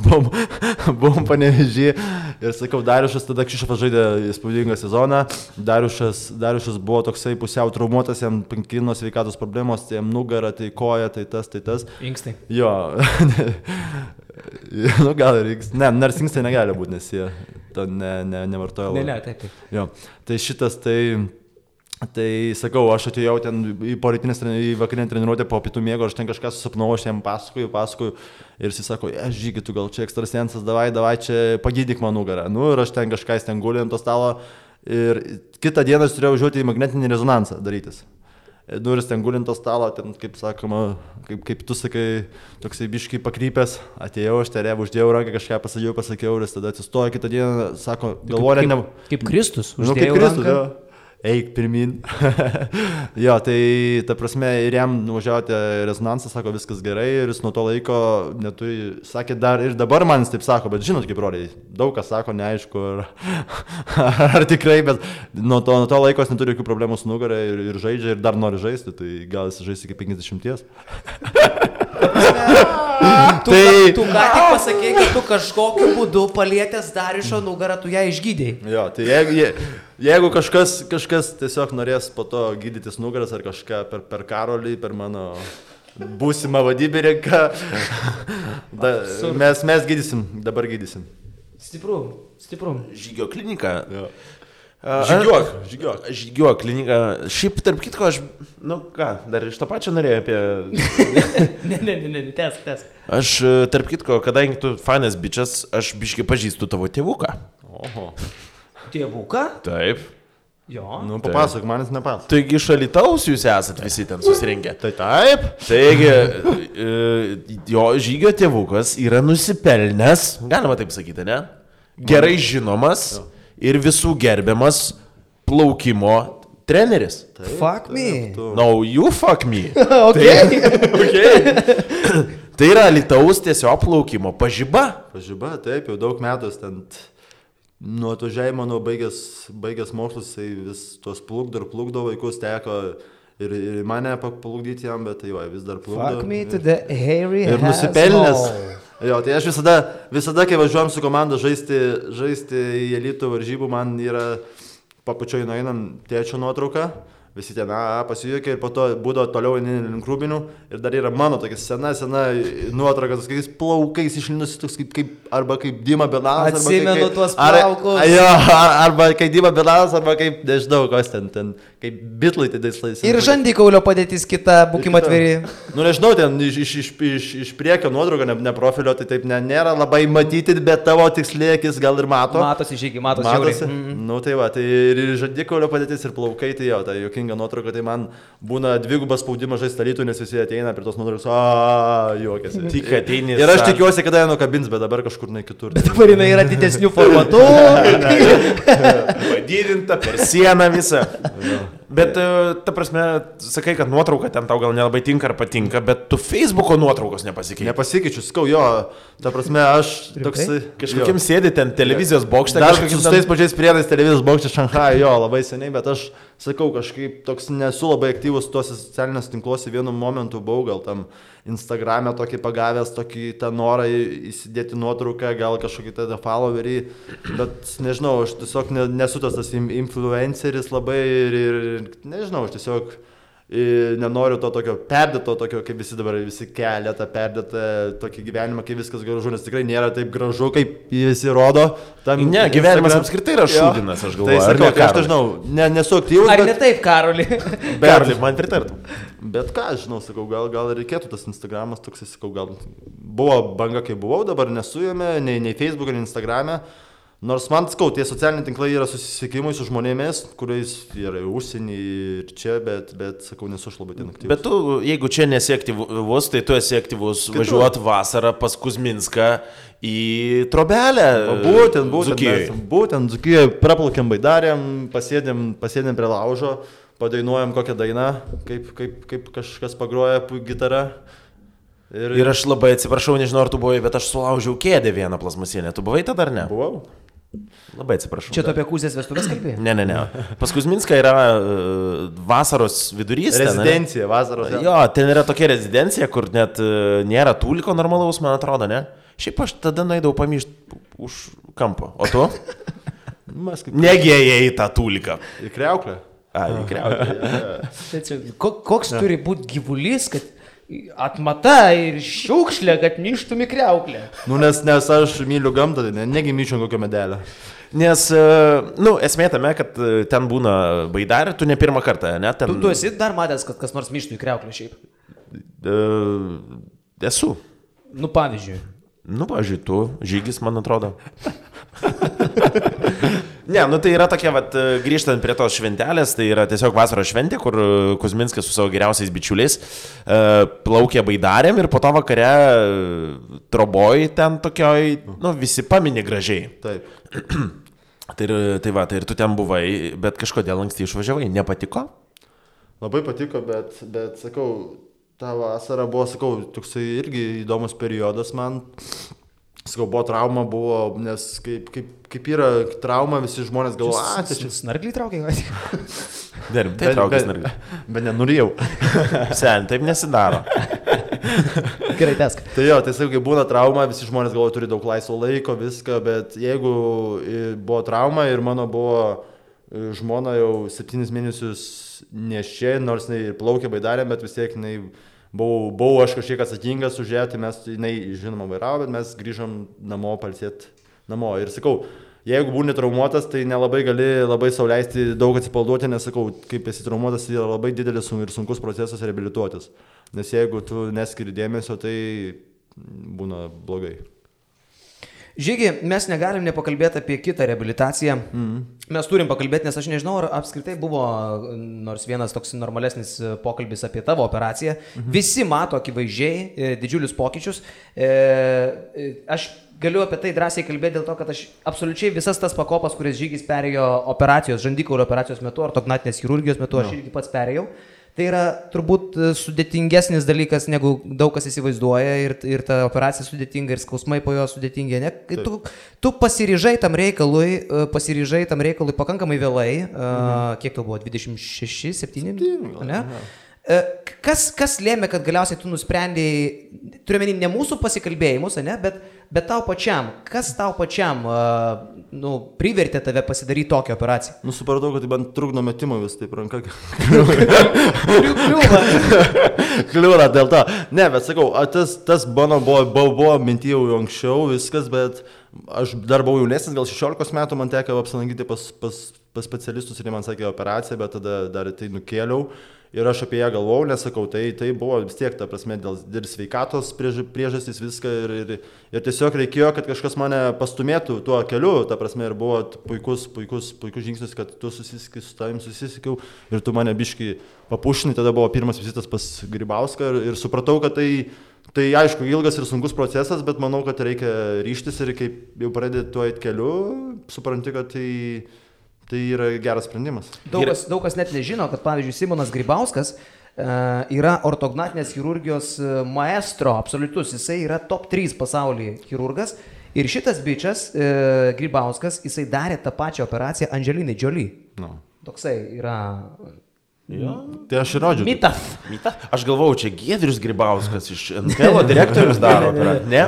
buvom Panevėžy ir sakau, Dariušas tada Kšištofas žaidė įspūdingą sezoną, Dariušas buvo toksai pusiau traumuotas, jam pankino sveikatos problemos, tai jam nugara, tai koja, tai tas. Inkstai. Jo, gal ir inkstai, nors inkstai negali būti, nes jie to nevartoja. Ne, taip. Jo, tai šitas, tai sakau, aš atėjau ten į vakarinę treniruotę po pietų miego, aš ten kažką susapnau, aš jam pasakoju ir jis sako, Žygi, tu gal čia ekstrasensas, davai čia pagydyk man nugarą. Ir aš ten kažką ten gulė ant to stalo ir kitą dieną aš turėjau važiuoti į magnetinį rezonansą darytis. Ir jis ten gulė ant to stalo, ten, kaip sakoma, kaip tu sakai, toksai biškai pakrypęs, atėjau, aš terėvą, uždėjau ranką, kažką pasakiau ir jis tada atsistojo kitą dieną, sako, galvoja, ne... Kaip Kristus, uždėjau ranką. Eik pirmin. Jo, tai ta prasme ir jam nuvažiavote rezonansą, sako, viskas gerai ir jis nuo to laiko neturi, sakė dar ir dabar man jis taip sako, bet žinot, kaip broliai, daug kas sako, neaišku, ar tikrai, bet nuo to laiko jis neturi jokių problemų su nugarą ir žaidžia ir dar nori žaisti, tai gal jis žais iki 50. Tu ką tik pasakei, kad tu kažkokiu būdu palietęs Dariušo nugarą, tu ją išgydėjai. Jo, tai jeigu kažkas tiesiog norės po to gydytis nugaras ar kažką per Karolį, per mano būsimą vadybininką, mes gydysim, dabar gydysim. Stipru. Žygio klinika. Jo. Žygiuok klinika. Šiaip, tarp kitko, aš, dar iš to pačio norėjau apie... Ne, tęsk. Aš, tarp kitko, kadangi tu fainas bičias, aš biškai pažįstu tavo tėvuką. Oho. Tėvuką? Taip. Jo. Nu, papasok, manis nepasok. Taigi iš Alytaus jūs esat visi ten susirinkę. Tai taip. Taigi, jo žygio tėvukas yra nusipelnęs, galima taip sakyti, ne? Gerai žinomas ir visų gerbiamas plaukimo treneris. Taip, fuck me. No, you fuck me. Okay. Tai yra Alytaus tiesiog plaukimo pažiba. Pažiba, taip, jau daug metų ten... Nuo atvažiavimo, baigęs mokslus, tai vis tuos plukdo vaikus, teko ir mane paplukdyti jam, bet tai jo, vis dar plukdo. Fuck me to the hairy ir nusipelnęs. Jo, tai aš visada, kai važiuojam su komanda žaisti į elitų varžybų, man yra papučioj nueinam tėčio nuotrauką. Visi ten pasijuokia ir po to būdavo toliau link Rūbinių ir dar yra mano tokia sena nuotrauka, tokiais plaukais išlinusi, toks arba kaip Dima Belanas. Atsimenu tuos plaukus. Arba kaip Dima Belanas, arba kaip, nežinau, kas ten, kaip Bitlai tais laikais. Ir žandikaulio padėtis kita, būkim atviri. Nu, nežinau, ten iš priekio nuotrauka, ne profilio, tai taip nėra labai matyti, bet tavo tikslėkis gal ir mato. Matosi, žygiai, matosi. Nu, tai va, tai ir žandikaulio padėtis, ir plaukai, tai jo, tai jokinga nuotrauka, tai man būna dvigubas spaudimas žaisti Alytų, nes visi ateina prie tos nuotraukos, juokiasi. Tik ateini. Ir aš tikiuosi, kada jie nukabins, bet dabar kažkur ne kitur. Bet dabar jinai yra didesnių formatų. Padidinta per sieną visą. Bet, ta prasme, sakai, kad nuotrauka ten tau gal nelabai tinka ar patinka, bet tu Facebooko nuotraukos nepasikeičiu. Nepasikeičiu, skau, jo, ta prasme, aš toksai... Kažkokiam sėdi ten televizijos bokšte. Dar su tais pačiais priedais televizijos bokšte Šanchai, jo, labai seniai, bet aš sakau, kažkaip toks nesu labai aktyvus tuose socialiniuose tinkluose, vienu momentu buvau, gal tam Instagram'e tokį pagavęs, tokį tą norą įsidėti nuotrauką, gal kažkokį tada followerį, bet nežinau, aš tiesiog nesu tas influenceris labai ir nežinau, aš tiesiog nenoriu to tokio perdėto, tokio, kaip visi dabar visi kelia tą perdėtą tokį gyvenimą, kai viskas gražu, nes tikrai nėra taip gražu, kaip visi rodo. Ne, gyvenimas apskritai yra šūdinas, aš galvoju. Tai sakau, aš nežinau, nesu aktyvus. Ar ne taip, Karoli? Karoli, man pritartų. Bet ką, žinau, sakau, gal reikėtų tas Instagramas toks, sakau, gal buvo banga, kai buvau, dabar nesu jame, nei Facebook'e, nei Instagram'e. Nors man, sakau, tie socialiniai tinklai yra susisiekimai su žmonėmis, kuriais yra užsienį ir čia, bet sakau, nesu aš labai ten aktyvus. Bet tu, jeigu čia nesi aktyvus, tai tu esi aktyvus važiuot vasarą pas Kuzminską į Trobelę. Būtent Dzūkijoje praplaukėm Baidarėm, pasėdėm prie laužo, padainuojam kokią dainą, kaip kažkas pagroja gitarą. Ir aš labai atsiprašau, nežinau, ar tu buvai, bet aš sulaužiau kėdę vieną plastmasinę. Tu buvai tada ar ne? Buvau. Labai atsiprašau. Čia tu apie Kuzės vestuvės kalbėjai? Ne. Pas Kuzminską yra vasaros vidurys. Rezidencija, vasaros. Jo, ten yra tokia rezidencija, kur net nėra tūliko normalaus, man atrodo, ne? Šiaip aš tada nueidavau pamyšti už kampo. O tu? Negėjai tą tūliką. Į kriauklę. Į kriauklę. Koks turi būti gyvulys, kad atmata ir šiukšlė, kad ništum į kriauklę. Nu, nes aš myliu gamtą, negi myčiau kokio medelio. Nes, esmė tame, kad ten būna Baidarė, tu ne pirmą kartą, ne? Ten... Tu esi dar matęs, kad kas nors myštų į kriauklę šiaip? Esu. Nu, pavyzdžiui. Tu, žygis, man atrodo. Ne, tai yra tokia, grįžtant prie tos šventelės, tai yra tiesiog vasaros šventė, kur Kuzminskas su savo geriausiais bičiuliais plaukė Baidarėm ir po to vakare Troboj ten tokioj, visi paminė gražiai. Taip. Tai ir tu ten buvai, bet kažkodėl anksti išvažiavai, nepatiko? Labai patiko, bet sakau, ta vasara buvo, sakau, toksai irgi įdomus periodas man. Sakau, buvo trauma, nes kaip yra trauma, visi žmonės galvoja, čia snargliai traukia. Tai traukia snargliai. Bet nenurijau. Sen, taip nesidaro. Gerai, tesk. Tai jo, tai sakau, kai būna trauma, visi žmonės galvoja, turi daug laisvo laiko, viską, bet jeigu buvo trauma ir mano buvo žmona jau 7 mėnesius nešė, nors jinai plaukė baidarėm, bet vis tiek buvau aš kažkiek atsakingas už ją, tai mes, jinai žinoma vairavo, bet mes grįžom namo, palsėt namo. Ir sakau, jeigu būni traumuotas, tai nelabai gali labai sau leisti daug atsipalduoti, nes sakau, kaip esi traumuotas, tai yra labai didelis ir sunkus procesas reabilituotis. Nes jeigu tu neskiri dėmesio, tai būna blogai. Žygi, mes negalim nepakalbėti apie kitą reabilitaciją. Mes turim pakalbėti, nes aš nežinau, ar apskritai buvo nors vienas toks normalesnis pokalbis apie tavo operaciją. Visi mato akivaizdžiai didžiulius pokyčius. Aš galiu apie tai drąsiai kalbėti dėl to, kad aš absoliučiai visas tas pakopas, kurias Žygis perėjo operacijos, žandikaulio operacijos metu ar ortognatinės chirurgijos metu, aš irgi pats perėjau. Tai yra turbūt sudėtingesnis dalykas, negu daug kas įsivaizduoja ir ta operacija sudėtinga ir skausmai po jo sudėtingi. Ne? Tu pasiryžai tam reikalui pakankamai vėlai, kiek tau buvo, 26, 7? Ne? Kas lėmė, kad galiausiai tu nusprendėjai, turiuomenį ne mūsų pasikalbėjimus, ne, bet tau pačiam, kas tau pačiam privertė tave pasidaryti tokią operaciją? Supratau, kad man trukdo metimo vis taip ranka. Kliūna dėl to. Ne, bet sakau, tas mano buvo minty jau anksčiau viskas, bet aš dar buvau jaunesnis, gal 16 metų man teko apsilankyti pas specialistus ir man sakė operaciją, bet tada dar tai nukėliau. Ir aš apie ją galvojau, nes sakau, tai buvo vis tiek, ta prasme, dėl sveikatos priežastys viską ir tiesiog reikėjo, kad kažkas mane pastumėtų tuo keliu, ta prasme, ir buvo puikus žingsnis, kad tu susisikai su tavim, susisikiau ir tu mane biškai papušinai, tada buvo pirmas vizitas pas Grybauską ir supratau, kad tai aišku ilgas ir sunkus procesas, bet manau, kad reikia ryžtis ir kaip jau pradėti tuo eit keliu, supranti, kad tai yra geras sprendimas. Daug kas net nežino, kad pavyzdžiui Simonas Grybauskas yra ortognatinės chirurgijos maestro absoliutus, jisai yra top 3 pasaulyje chirurgas ir šitas bičias Grybauskas, jisai darė tą pačią operaciją Angelinai Jolie. Toksai yra... Tai aš ir rodžiu. Mitas. Aš galvojau, čia Giedrius Grybauskas iš NKL direktorius daro. Ne?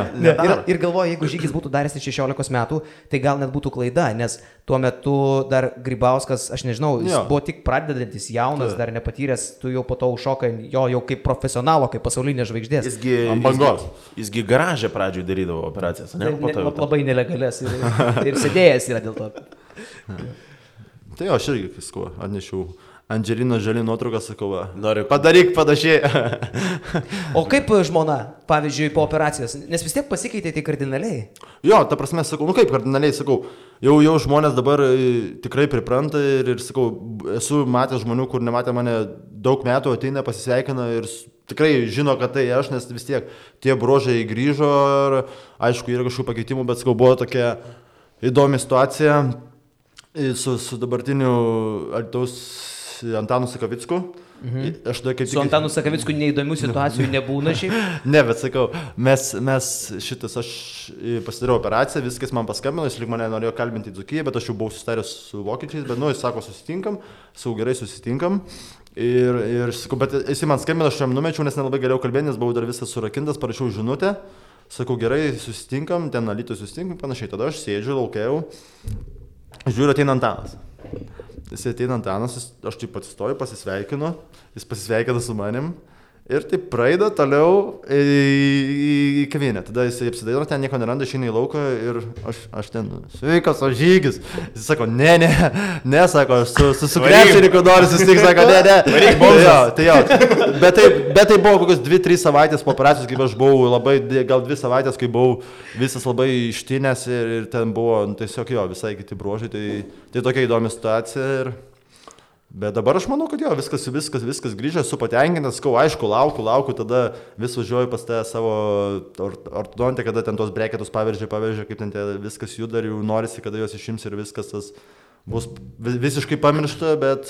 Ir galvoju, jeigu Žygis būtų daręs 16 metų, tai gal net būtų klaida, nes tuo metu dar Grybauskas, aš nežinau, jis buvo tik pradedantis, jaunas, dar nepatyręs, tu jau po to užšokai jo jau kaip profesionalo, kaip pasaulinė žvaigždės. Jisgi garažę pradžioj darydavo operacijas, ne? Labai nelegalės ir sėdėjęs yra dėl to. Tai aš irgi visko atnešiau. Angelina Jolie nuotrauką, sakau, padaryk panašiai. O kaip žmona, pavyzdžiui, po operacijos? Nes vis tiek pasikeitė tai kardinaliai. Jo, ta prasme, sakau, kaip kardinaliai, sakau, jau žmonės dabar tikrai pripranta ir sakau, esu matęs žmonių, kur nematė mane daug metų, ateina, pasisveikina ir tikrai žino, kad tai aš, nes vis tiek tie bruožai grįžo ir aišku, yra kažkokių pakeitimų, bet sakau, buvo tokia įdomi situacija su dabartiniu Alytaus Antanu Sakavicku. Su Antanu Sakavicku neįdomių situacijų nebūna šiaip? Ne, bet sakau, aš pasidariau operaciją, viskas man paskambino, jis lyg mane norėjo kalbinti į Dzūkiją, bet aš jau buvau susitaręs su vokiečiais, bet jis sako, gerai susitinkam. Ir sakau, bet jis man skambino, aš jam numečiau, nes nelabai galėjau kalbėti, nes buvau dar visas surakintas, parašiau žinutę. Sakau, gerai, susitinkam, ten Alytuje susitinkam, panašiai. Tada aš sėdžiu, laukiau, žiūriu, ateina Antanas. Jis ateina Antanas, aš taip atsistoju, pasisveikinu, jis pasisveikina su manim ir taip praeida toliau į kavinę. Tada jis apsidairo, ten nieko neranda, išeina į lauką ir aš ten, sveikas, o Žygis. Jis sako, ne, sako, aš su krepšininku noriu susitikti, sako, ne. Bet tai buvo kokios 2-3 savaitės po operacijos, kaip aš buvau gal 2 savaitės, kai buvau visas labai ištinęs ir ten buvo tiesiog visai kiti bruožai, tai tokia įdomi situacija. Bet dabar aš manau, kad viskas grįžę, esu patenkintas, aišku, laukiu, tada vis važiuoju pas tą savo ortodontę, kada ten tos breketus paveržė, kaip ten viskas juda ir jau norisi, kada juos išims ir viskas tas bus visiškai pamiršta, bet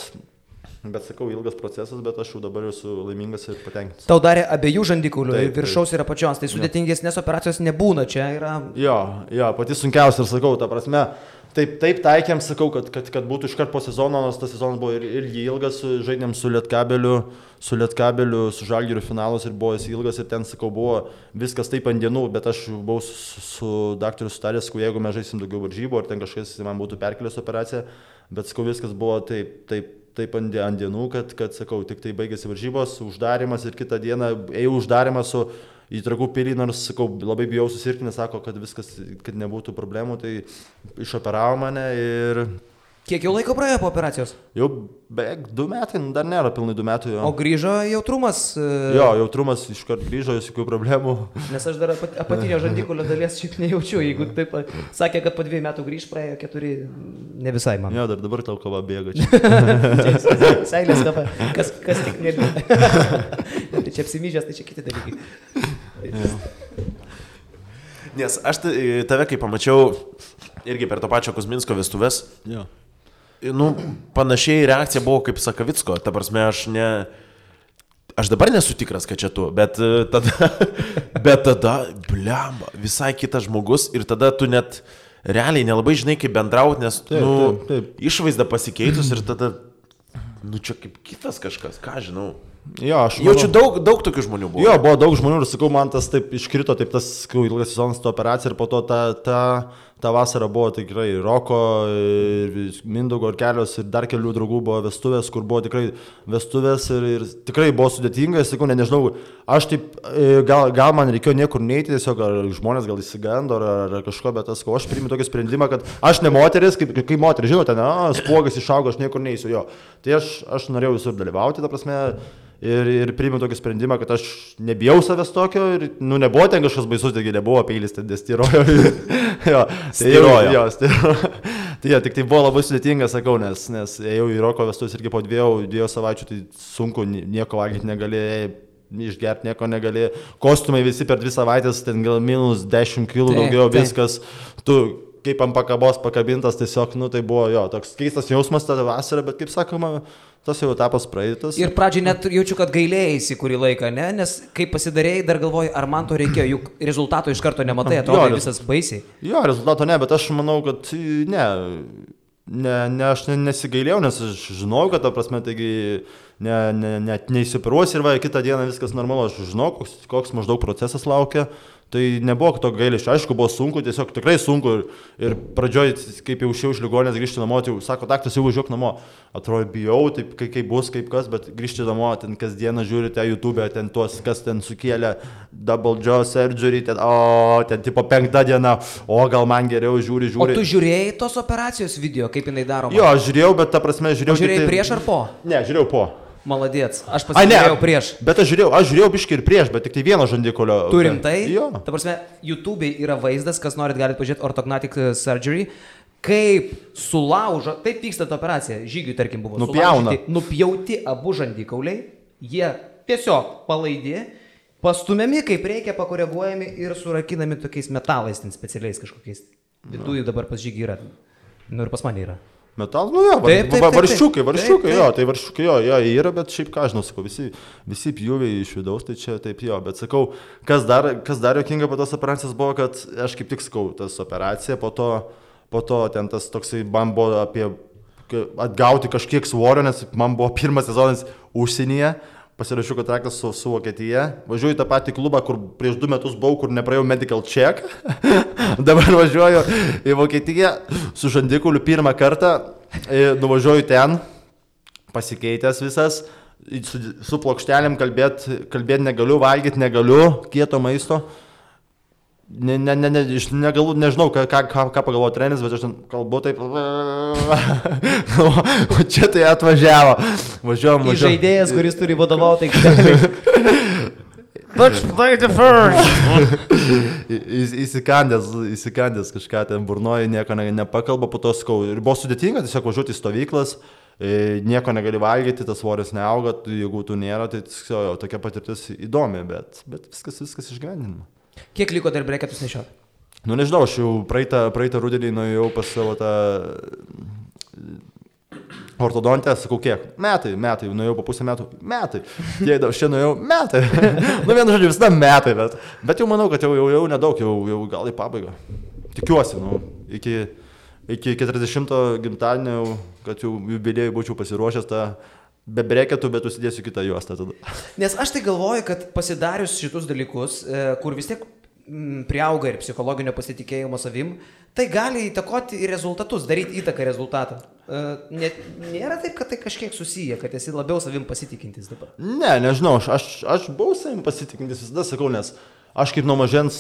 sakau, ilgas procesas, bet aš jau dabar esu laimingas ir patenkintas. Tau darė abiejų žandikaulių, viršaus ir apačios, tai sudėtingesnės operacijos nebūna, čia yra... Jo, pati sunkiausia ir sakau, ta prasme, Taip taikėm, sakau, kad būtų iškart po sezono, nors tas sezonas buvo ir ilgas, žaidėm su Lietkabeliu, su Žalgiriu finalus ir buvo jis ilgas ir ten, sakau, buvo viskas taip ant dienų, bet aš buvau su daktaru sutaręs, jeigu mes žaisim daugiau varžybų, ar ten kažkas man būtų perkelęs operaciją, bet, sakau, viskas buvo taip ant dienų, kad, sakau, tik tai baigėsi varžybos, uždarimas ir kitą dieną ėjau uždarimas su į Trakų pilį, nors, sakau, labai bijau susirgti, nes sako, kad viskas, kad nebūtų problemų, tai išoperavo mane ir... Kiek jau laiko praėjo po operacijos? Jau beveik 2 metai, dar nėra pilnai 2 metų. Jo. O grįžo jautrumas? Jo, jautrumas iškart grįžo, jokių problemų. Nes aš dar apatinio žandikulio dalies šiaip nejaučiu, jeigu taip sakė, kad po 2 metų grįž, praėjo 4, ne visai man. Jo, dabar tau kava bėga čia. Seilės kava, kas tik nėra. Tai čia apsimyžęs, tai čia kiti dalykai. Nes aš tave, kai pamačiau irgi per to pačio Kuzminsko vestuves, jo. Nu, panašiai reakcija buvo kaip Sakavicko, ta prasme, aš dabar nesu tikras, kad čia tu, bet tada, blemba, visai kitas žmogus ir tada tu net realiai nelabai žinai, kaip bendrauti, nes, taip. Išvaizda pasikeitus ir tada, čia kaip kitas kažkas, ką žinau. Jo, aš jaučiu daug tokių žmonių buvo. Jo, buvo daug žmonių ir sakau, man tas taip iškrito, taip tas, sakau, ilgas sezonas to operacija ir po to ta vasara buvo tikrai Roko, Mindaugo ir kelios ir dar kelių draugų buvo vestuvės, kur buvo tikrai vestuvės ir tikrai buvo sudėtinga, sakau, nežinau, aš taip, gal man reikėjo niekur neiti, tiesiog ar žmonės gal įsigando ar kažko, bet aš priimu tokį sprendimą, kad aš ne moteris, kaip moteris, žinote, spuogas išaugo, aš niekur neįsiu jo. Tai aš norėjau visur dalyvauti, ta prasme, ir priėmiau tokį sprendimą, kad aš nebijau savęs tokio ir, nebuvo ten kažkas baisus, taigi nebuvo peilis, ten styrojo. Styrojo. Tai tik tai buvo labai sudėtinga, sakau, nes ėjau į Roko vestuvės irgi po 2 savaičių, tai sunku, nieko valgyti negali, išgerti nieko negali, kostiumai visi per 2 savaitės, ten gal minus 10 kg daugiau, viskas, tu kaip ant pakabos pakabintas, tiesiog, tai buvo jo, toks keistas jausmas tada vasarą, bet kaip sakoma, tas jau etapas praeitas. Ir pradžiai net jaučiu, kad gailėjai kurį laiką, ne? Nes kai pasidarėjai, dar galvoju, ar man to reikėjo, juk rezultato iš karto nematai, atrodo visas baisiai. Jo, rezultato ne, bet aš manau, kad aš nesigailėjau, nes aš žinau, kad ta prasme, taigi net neįsipiruosi ir kitą dieną viskas normalu, aš žinau, koks maždaug procesas laukia. Tai nebuvo to gailesčio, aišku, buvo sunku, tiesiog tikrai sunku ir pradžioj, kaip jau išėjau iš ligoninės grįžti namo, tai sako, daktaras, jau važiuok namo. Atrodo, bijau, taip kaip bus, kaip kas, bet grįžti namo, ten kasdieną žiūrite YouTube, ten tuos, kas ten sukėlė double jaw surgery, ten tipo 5 diena, gal man geriau žiūri. O tu žiūrėjai tos operacijos video, kaip jinai daroma? Jo, aš žiūrėjau, bet ta prasme žiūrėjau. O žiūrėjai prieš ar po? Ne, žiūrėjau po. Maladėts, aš pasižiūrėjau prieš. Bet aš žiūrėjau biškį ir prieš, bet tik tai vieno žandikulio. Tu rimtai? Jo. Ta prasme, YouTube'ai yra vaizdas, kas norit galite pažiūrėti Ortognatic Surgery, kaip sulaužo, taip vyksta ta operacija, žygiui tarkim buvo. Nupjauti abu žandikauliai, jie tiesiog palaidi, pastumiami kaip reikia, pakoreguojami ir surakinami tokiais metalais, ten specialiais kažkokiais. Viduje dabar pas žygį yra, ir pas mane yra. Metal, varščiukai, jo, tai varščiukai, jo, yra, bet šiaip ką žinau, sakau, visi pjūviai iš vidaus, tai čia taip jo, bet sakau, kas dar jokinga po tos operacijos buvo, kad aš kaip tik sakau, tas operacija, po to ten tas toksai, man buvo apie atgauti kažkiek svorio, nes man buvo pirmas sezonas užsienyje, pasirašiau kontraktą su Vokietija, važiuoju į tą patį klubą, kur prieš 2 metus buvau, kur nepraėjau medical check, dabar važiuoju į Vokietiją su žandikuliu pirmą kartą, nuvažiuoju ten, pasikeitęs visas, su plokštelėm kalbėti negaliu, valgyti negaliu, kieto maisto. Nežinau, ką pagalvojo treneris, bet aš kalbu taip, o čia tai atvažiavo. Važiuojam. Žaidėjas, kuris turi vadovauti aikštelėje. Let's play the first. Įsikandęs kažką ten burnoja, nieko nepakalba, po to skau. Ir buvo sudėtinga tiesiog važiuoti į stovyklas, nieko negali valgyti, tas svoris neauga, jeigu tu nėra, tai tokia patirtis įdomi, bet viskas išgyvendinama. Kiek liko dar breketus nešioti? Nežinau, aš jau praeitą rudenį nuėjau pas savo tą ortodontę, sakau, kiek? Metai, nuėjau po pusę metų, metai. Tiek aš čia nuėjau, metai. Vienu žodžiu, visada metai, bet jau manau, kad jau nedaug, jau gal į pabaigą. Tikiuosi, iki 40 gimtadienio, kad jau jubiliejui būčiau pasiruošęs tą be breketų, bet užsidėsiu kitą juostą tada. Nes aš tai galvoju, kad pasidarius šitus dalykus, kur vis tiek priauga ir psichologinio pasitikėjimo savim, tai gali įtakoti ir rezultatus, daryti įtaką rezultatą. Nėra taip, kad tai kažkiek susiję, kad esi labiau savim pasitikintis dabar. Ne, nežinau, aš buvau savim pasitikintis visada, sakau, nes aš kaip nuo mažens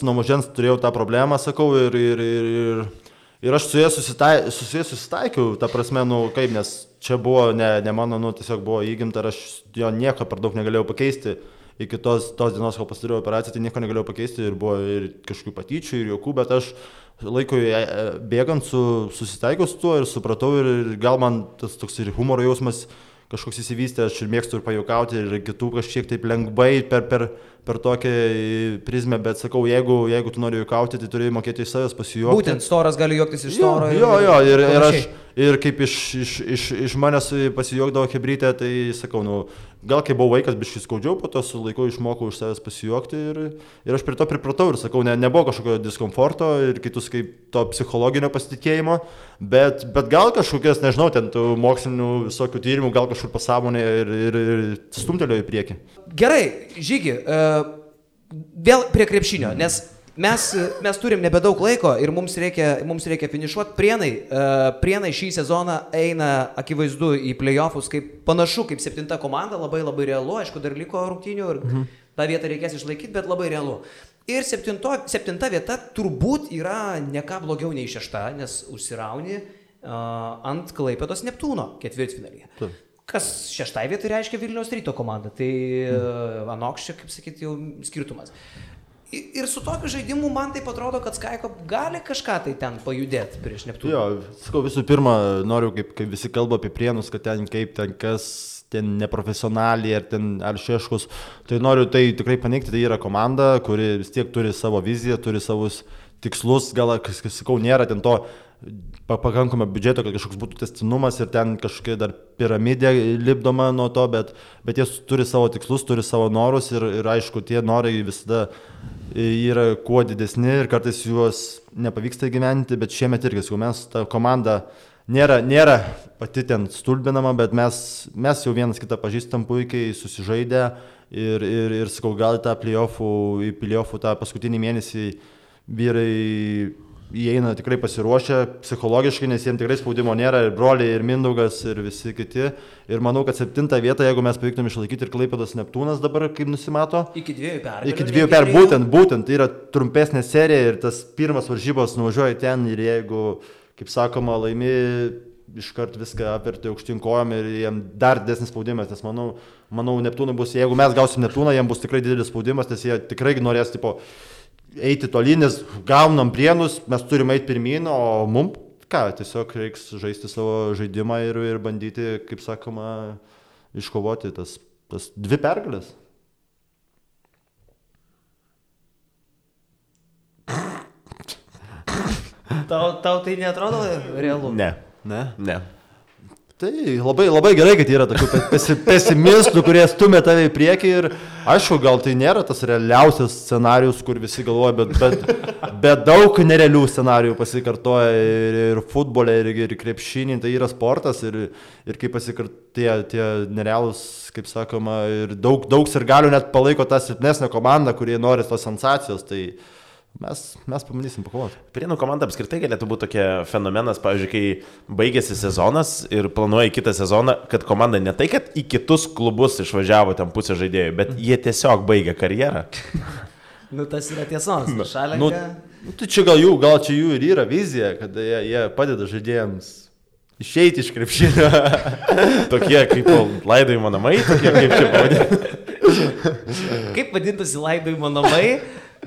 turėjau tą problemą, sakau, ir aš su jais susitaikiau, ta prasme, kaip, nes čia buvo ne mano, tiesiog buvo įgimta ir aš jo nieko per daug negalėjau pakeisti. Iki tos dienos, kol pasidariau operaciją, tai nieko negalėjau pakeisti ir buvo ir kažkokių patyčių, ir juokų, bet aš laikui bėgant susitaikiau su tuo ir supratau ir gal man tas toks ir humoro jausmas kažkoks įsivystė, aš ir mėgstu ir pajuokauti ir kitų kažkiek taip lengvai per tokią prizmę, bet sakau, jeigu tu nori juokauti, tai turi mokėti iš savęs pasijuokti. Būtent storas gali juoktis iš storo. Ir kaip iš manęs pasijuokdavo hebrytė, tai sakau, gal kai buvau vaikas, biškai skaudžiau, po to su laiku išmokau iš savęs pasijuokti ir aš prie to pripratau ir sakau, nebuvo kažkokio diskomforto ir kitus kaip to psichologinio pasitikėjimo, bet gal kažkokias, nežinau, ten tų mokslinių visokių tyrimų, gal kažkur pasąmonė ir stumtelėjo į priekį. Gerai, Žygi, vėl prie krepšinio, nes mes turim nebedaug laiko ir mums reikia finišuoti. Prienai šį sezoną eina akivaizdu į play-offus, panašu kaip 7 komanda, labai labai realu, aišku, dar liko rungtynių ir tą vietą reikės išlaikyti, bet labai realu. Ir 7 vieta turbūt yra ne ką blogiau nei 6, nes užsirauni ant Klaipėdos Neptūno ketvirtfinalyje. Kas 6 vietoj reiškia Vilniaus Ryto komanda, tai anoks čia, kaip sakyti, jau skirtumas. Ir su tokiu žaidimu man taip atrodo, kad Skaiko gali kažką tai ten pajudėti prieš Neptūną. Jo, sakau, visų pirma, noriu, kaip visi kalba apie Prienus, kad ten kas ten neprofesionaliai ar Šeškus, tai noriu tai tikrai paneigti, tai yra komanda, kuri vis tiek turi savo viziją, turi savus tikslus, gal, sakau, nėra ten to pakankamą biudžeto, kad kažkoks būtų tęstinumas ir ten kažkokia dar piramidė lipdoma nuo to, bet jie turi savo tikslus, turi savo norus ir aišku, tie norai visada yra kuo didesni ir kartais juos nepavyksta įgyventi, bet šiemet irgi, mes ta komanda nėra pati ten stulbinama, bet mes jau vienas kitą pažįstam puikiai, susižaidę ir sakau, gal į play-offų tą paskutinį mėnesį vyrai įeina tikrai pasiruošę psichologiškai, nes jiems tikrai spaudimo nėra, ir broliai, ir Mindaugas, ir visi kiti. Ir manau, kad 7 vietą, jeigu mes pavyktum išlaikyti ir Klaipėdos Neptūnas dabar, kaip nusimato. Iki 2 pergalių. Iki 2 pergalių, būtent, tai yra trumpesnė serija ir tas pirmas varžybos nuvažiuoja ten ir jeigu, kaip sakoma, laimi, iškart viską apverti aukštyn kojom ir jiem dar didesnis spaudimas, nes manau Neptūnai bus, jeigu mes gausim Neptūną, jiem bus tikrai didelis spaudimas, nes jie tikrai norės, eiti tolyn, nes gaunam Prienus, mes turime eiti pirmyn, o mums, tiesiog reiks žaisti savo žaidimą ir bandyti, kaip sakoma, iškovoti tas 2 pergalės. Tau tai neatrodo realu? Ne. Tai labai gerai, kad yra tokių pesimistų, kurie stumia tave į priekį ir aišku, gal tai nėra tas realiausias scenarius, kur visi galvoja, bet daug nerealių scenarijų pasikartoja ir futbole, ir krepšinį, tai yra sportas ir kaip pasikartoja tie nerealūs, kaip sakoma, ir daug sirgalių net palaiko tą silpnesnę komandą, kurie nori tos sensacijos, tai mes pabandysim pakovoti. Prienų komanda apskritai galėtų būti tokia fenomenas, pavyzdžiui, kai baigėsi sezonas ir planuoja kitą sezoną, kad komanda ne tai, kad į kitus klubus išvažiavo ten pusę žaidėjų, bet jie tiesiog baigė karjerą. Tas yra tiesos. Šalenka. Tai čia gal čia jų ir yra vizija, kad jie padeda žaidėjams išeiti iš krepšinio. Tokie kaip laidojimo namai, tokie kaip čia pavadinti. Kaip vadintųsi laidojimo namai,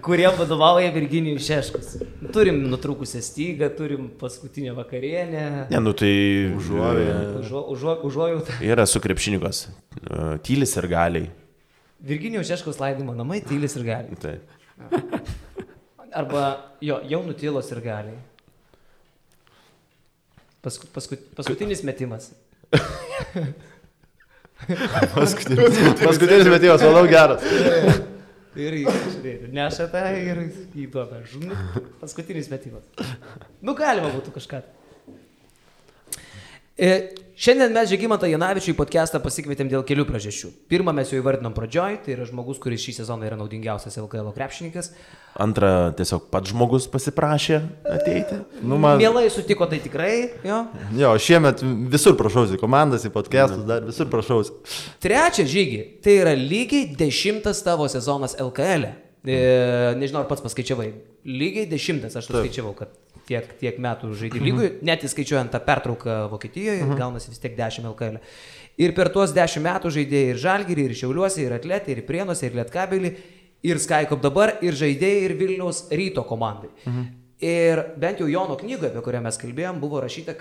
kuriem vadovauja Virginijus Šeškus. Turim nutrūkusią stygą, turim paskutinę vakarienę. Tai užuojautą. Yra su krepšininkos. Tylis ir galiai. Virginijus Šeškus laidojimo namai, tylis ir galiai. Taip. Arba jau nutylos ir galiai. Paskutinis metimas. Paskutinis metimas, manau, geras. Ir nešate ir įduoda. Paskutinis metimas. Galima būtų kažką. Šiandien mes Žygimantą Janavičių į podcastą pasikvietėm dėl kelių priežasčių. Pirmą mes jau įvardinom pradžioj, tai yra žmogus, kuris šį sezoną yra naudingiausias LKL krepšininkas. Antra, tiesiog pats žmogus pasiprašė ateiti. Mielai sutiko, tai tikrai, jo. Jo, šiemet visur prašausi, komandas į podcastus, dar visur prašausi. Trečia, Žygi, tai yra lygiai 10 tavo sezonas LKL. Nežinau, ar pats paskaičiavai. Lygiai 10, aš paskaičiavau, kad tiek metų žaidė lygui, net įskaičiuojant tą pertrauką Vokietijoje, gaunasi vis tiek 10 LKL. Ir per tuos 10 metų žaidėjai ir Žalgirį, ir Šiauliuose, ir Atletį, ir Prienuose, ir Lietkabelį, ir Skycop dabar, ir žaidėjai, ir Vilniaus Ryto komandai. Ir bent jau Jono knygoje, apie kurią mes kalbėjom, buvo rašyta,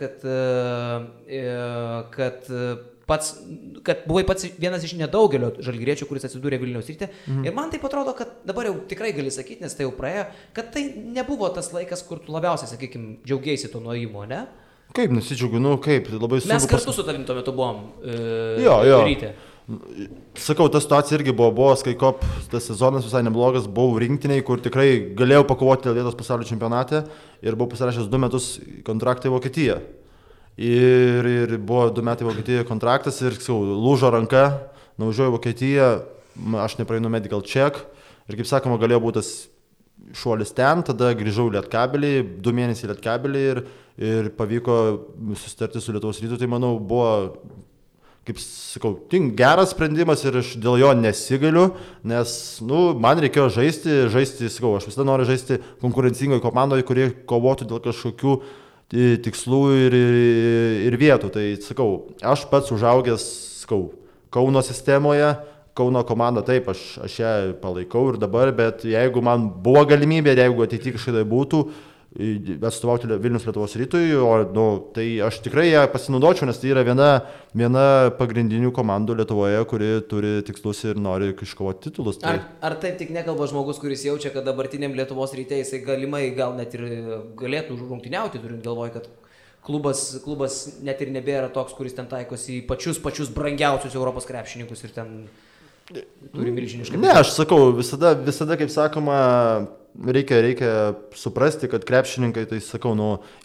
kad buvai pats vienas iš nedaugelio žalgiriečių, kuris atsidūrė Vilniaus Ryte. Ir man taip atrodo, kad dabar jau tikrai gali sakyti, nes tai jau praėjo, kad tai nebuvo tas laikas, kur tu labiausiai, sakykime, džiaugiaisi to nuėjimo, ne? Kaip nusidžiaugiu, kaip, labai sunku. Mes kartu su tavim tuo metu buvom Ryte. Sakau, ta situacija irgi buvo Skycop, tas sezonas visai neblogas, buvau rinktiniai, kur tikrai galėjau pakovoti dėl vietos pasaulio čempionate ir buvau pasirašęs 2 metus kontraktą į Vokietiją. Ir buvo 2 metai Vokietijoje kontraktas ir lūžo ranka, nuvažiuoju į Vokietiją, aš nepraeinu medical check ir kaip sakoma, galėjo būti tas šuolis ten, tada grįžau į Lietkabelį, 2 mėnesiai į Lietkabelį ir pavyko susitarti su Lietuvos Rytu, tai manau buvo, kaip sakau, geras sprendimas ir aš dėl jo nesigailiu, nes man reikėjo žaisti, sakau, aš visada noriu žaisti konkurencingoje komandoje, kurie kovotų dėl kažkokių tikslų ir vietų. Tai sakau, aš pats užaugęs, Kauno sistemoje, Kauno komanda, taip, aš ją palaikau ir dabar, bet jeigu man buvo galimybė, jeigu ateityje kažkada būtų atstovauti Vilnius Lietuvos Rytui, tai aš tikrai ją pasinaudočiau, nes tai yra viena pagrindinių komandų Lietuvoje, kuri turi tikslus ir nori iškovoti titulus. Tai... Ar taip tik nekalba žmogus, kuris jaučia, kad dabartiniam Lietuvos Ryte jisai galimai gal net ir galėtų rungtyniauti, turint galvoj, kad klubas net ir nebėra toks, kuris ten taikosi į pačius brangiausius Europos krepšininkus ir ten turi milžinišką... Ne, aš sakau, visada kaip sakoma, reikia suprasti, kad krepšininkai, tai sakau,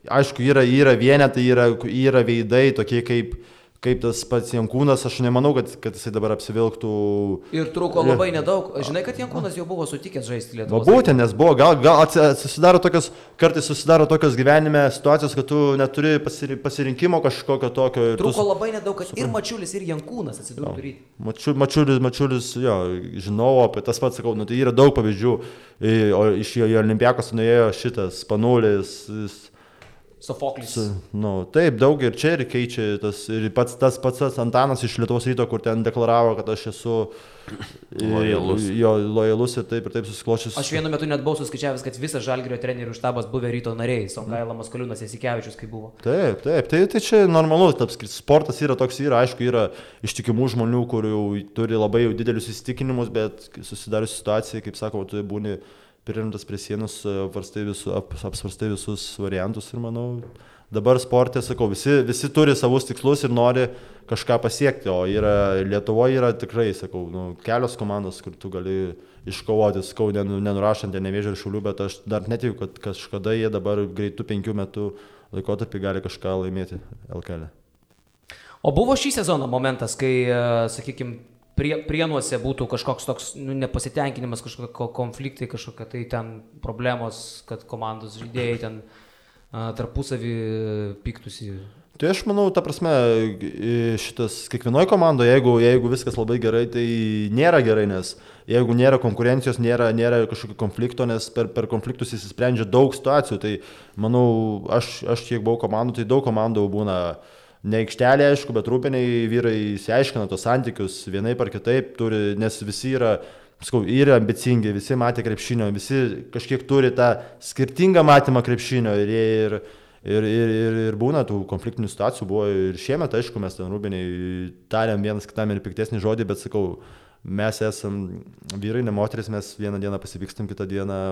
aišku, yra vienetai, yra veidai tokie kaip tas pats Jankūnas, aš nemanau, kad jisai dabar apsivilktų. Ir trūko labai nedaug. Žinai, kad Jankūnas jau buvo sutikęs žaisti Lietuvos. Būtent, nes buvo, gal kartais susidaro tokios gyvenime situacijos, kad tu neturi pasirinkimo kažkokio tokio. Trūko labai nedaug, kad ir Mačiulis, ir Jankūnas atsidurtų Ryte. Mačiulis, jo, žinau, apie tas pats, sakau, tai yra daug pavyzdžių. O iš jo Olimpiakos nuėjo šitas Panulis, Sofoklis. Taip, daug ir čia ir keičia tas, ir tas pats Antanas iš Lietuvos Ryto, kur ten deklaravo, kad aš esu lojalus ir taip susiklošęs. Aš vienu metu net buvau suskaičiavęs, kad visas Žalgirio trenerių štabas buvę Ryto nariai, Songaila, Maskoliūnas, Jasikevičius, kai buvo. Taip, tai čia normalu, sportas yra toks, aišku, yra ištikimų žmonių, kurių turi labai didelius įsitikinimus, bet susidarius situacijai, kaip sakau, tu būni pririmtas prie sienos, apsvarstai visus variantus ir manau, dabar sporte, sakau, visi turi savus tikslus ir nori kažką pasiekti, o Lietuvoje yra tikrai, sakau, kelios komandos, kur tu gali iškovoti, sakau, nenurašant Nevėžio ir Šiaulių, bet aš dar netikiu, kad kažkada jie dabar greitų 5 metų laikotarpį gali kažką laimėti LKL. O buvo šį sezoną momentas, kai, sakykime, Prienuose būtų kažkoks toks nepasitenkinimas, kažkokie konfliktai, kažkokie tai ten problemos, kad komandos žaidėjai ten tarpusavį pyktusi. Tai aš manau, ta prasme, šitas kiekvienoje komandoje, jeigu viskas labai gerai, tai nėra gerai, nes jeigu nėra konkurencijos, nėra kažkokio konflikto, nes per konfliktus įsisprendžia daug situacijų, tai manau, aš kiek buvau komandų, tai daug komandų būna ne aikštelė, aišku, bet rūpiniai vyrai įsiaiškina tos santykius vienaip ar kitaip, nes visi yra ambicingi, visi matė krepšinio, visi kažkiek turi tą skirtingą matymą krepšinio ir būna tų konfliktinių situacijų, buvo ir šiemet, aišku, mes ten rūpiniai tariam vienas kitam ir piktesnį žodį, bet sakau, mes esam vyrai, ne moteris, mes vieną dieną pasipykstam, kitą dieną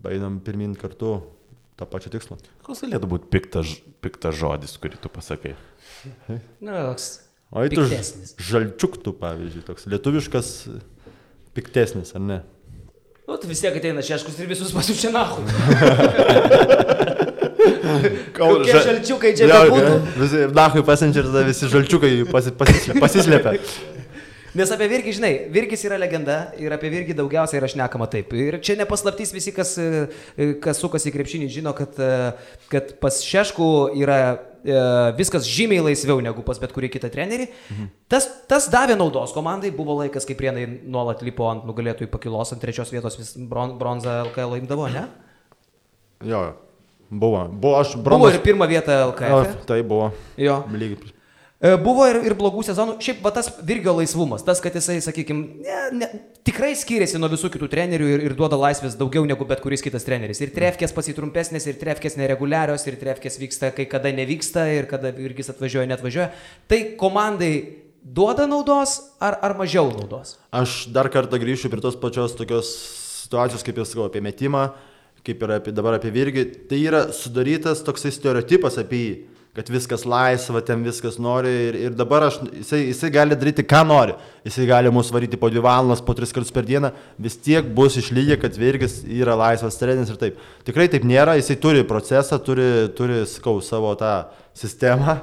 einam pirmin kartu tą pačią tikslą. Koks galėtų būti piktas žodis, kurį tu pasakai? Toks piktesnis. Žalčiuktų, pavyzdžiui, toks lietuviškas piktesnis, ar ne? Tu vis tiek ateina Šeškus ir visus pasiučia nahu. Kokie žalčiukai čia bebūtų. Visi Nahui pasiunčia ir tada visi žalčiukai pasislėpia. Nes apie Virgį, žinai, Virgis yra legenda ir apie Virgį daugiausiai yra šnekama taip. Ir čia nepaslaptys visi, kas sukasi į krepšinį, žino, kad pas Šeškų yra viskas žymiai laisviau negu pas bet kurį kitą trenerį. Tas davė naudos komandai, buvo laikas, kai Prienai nuolat lipo ant nugalėtojų pakilos, ant 3 vietos vis bronzą LKL imdavo, ne? Jo, buvo. Buvo ir 1 vieta LKL. Tai buvo. Jo. Lygiai. Buvo ir blogų sezonų. Šiaip va tas Virgio laisvumas, tas, kad jisai, sakykime, tikrai skiriasi nuo visų kitų trenerių ir duoda laisvės daugiau negu bet kuris kitas treneris. Ir trefkės pasitrumpesnės, ir trefkės nereguliarios, ir trefkės vyksta, kai kada nevyksta, ir kada Virgis atvažiuoja, netvažiuoja. Tai komandai duoda naudos ar mažiau naudos? Aš dar kartą grįšiu prie tos pačios tokios situacijos, kaip jau sakau, apie metimą, kaip ir dabar apie Virgį. Tai yra sudarytas toksai stereotipas apie jį, kad viskas laisva, ten viskas nori ir dabar jisai gali daryti, ką nori. Jisai gali mus varyti po 2 valandas, po 3 kartus per dieną, vis tiek bus išlygę, kad Virgis yra laisvas treneris ir taip. Tikrai taip nėra, jisai turi procesą, turi sakau, savo tą sistemą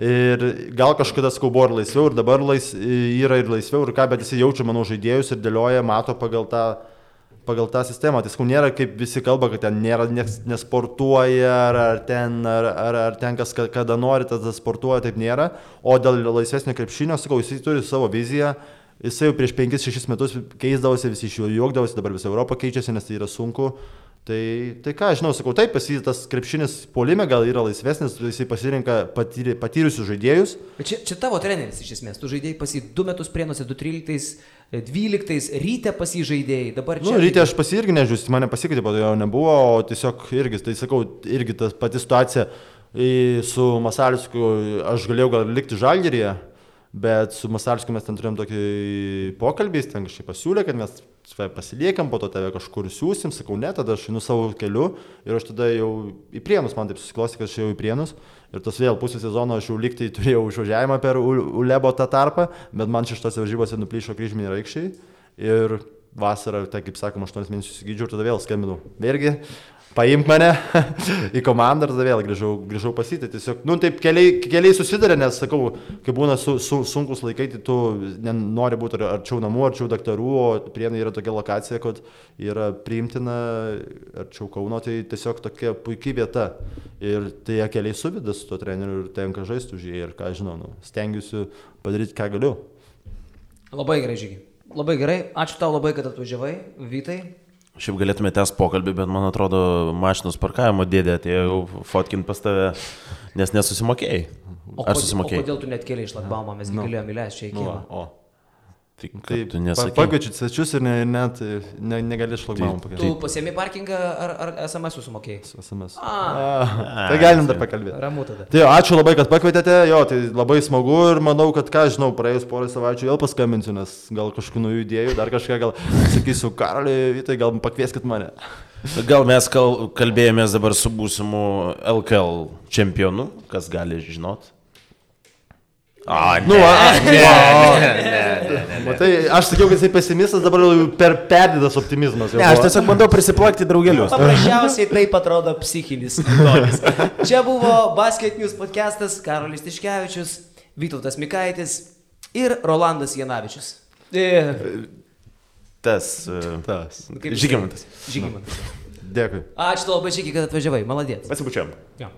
ir gal kažkada sakau buvo ir laisviau ir dabar yra ir laisviau ir ką, bet jisai jaučia, manau, žaidėjus ir dėlioja, mato pagal tą sistemą. Tai sakau, nėra kaip visi kalba, kad ten nėra, nesportuoja, ar ten kas kada nori, tada sportuoja, taip nėra. O dėl laisvesnio krepšinio, sakau, jisai turi savo viziją, jisai jau prieš 5-6 metus keisdavosi, visi iš jo juokdavosi, dabar visa Europa keičiasi, nes tai yra sunku. Tai ką, žinau, sakau, taip, tas krepšinis puolime gal yra laisvesnis, jisai pasirinka patyrusius žaidėjus. Bet čia tavo treneris iš esmės, tu žaidėjai pas jį 2 metus Prienuose, 2013, Ryte pas jį žaidėjai, dabar čia... Ryte aš pas jį irgi nežiūrėjau, mane pasikeitė, po to jo nebuvo, o tiesiog irgi, tai sakau, irgi ta pati situacija su Masalskiu, aš galėjau gal likti Žalgiryje, bet su Masalskiu mes ten turėjom tokį pokalbį, jis ten kažkaip pasiūlė, kad mes pasiliekam, po to tave kažkur siūsim, sakau, ne, tada aš einu savo keliu ir aš tada jau į Prienus, man taip susiklosti, kad aš jau į Prienus ir tos vėl pusę sezono aš jau liktai turėjau išvažiavimą per Ulebo tą tarpą, bet man 6 varžybose nuplyšo kryžminiai raikščiai ir vasarą, tai kaip sakoma, 8 mėnesius įsigydžiau ir tada vėl skambinau. Vėlgi, paimk mane į komandą ir tada vėl grįžau pasitį. Tiesiog, taip keliai susidarė, nes, sakau, kai būna sunkus laikai, tai tu nori būti arčiau namų, arčiau daktarų, o Prienai yra tokia lokacija, kad yra priimtina arčiau Kauno, tai tiesiog tokia puikiai vieta. Ir tai keliai suveda su tuo treneriu ir tenka žaisti už jį ir ką žinau, stengiuosi padaryti, ką galiu. Labai gerai, Žygi. Labai gerai. Ačiū tau labai, kad atvažiavai, Vytai. Šiaip galėtume tęsti pokalbį, bet man atrodo, mašinos parkavimo dėdė atėjo fotkint pas tave, nes nesusimokėjai. Ar susimokėjai? O kodėl tu net kėlė iš šlagbaumą, mes galėjome įleisti čia į kiemą. Taip, tu nesakei. Pakviečiu svečius ir net negali šlagbaumą pakeisti. Tu pasiemi parkingą ar SMS sumokėjai? SMS. Tai galim dar pakalbėti. Ramu tada. Tai ačiū labai, kad pakvietėte, tai labai smagu ir manau, kad ką žinau, praėjus porą savaičių vėl paskambinsiu, nes gal kažkokių naujų idėjų, dar kažką gal sakysiu, Karoli, Vytai, gal pakvieskit mane. Gal mes kalbėjomės dabar su būsimu LKL čempionu, kas gali žinot? Matai, aš sakiau, kad jisai pesimistas, dabar perdėtas optimizmas. Ne, aš tiesiog bandau prisiplakti draugelius. Paprasčiausiai taip atrodo psichinis ligonis. Čia buvo Basket News podcastas, Karolis Tiškevičius, Vytautas Mikaitis ir Rolandas Janavičius. Žygimantas. Dėkui. Ačiū labai, Žygi, kad atvažiavai. Maladėts. Pasibučiam. Jo.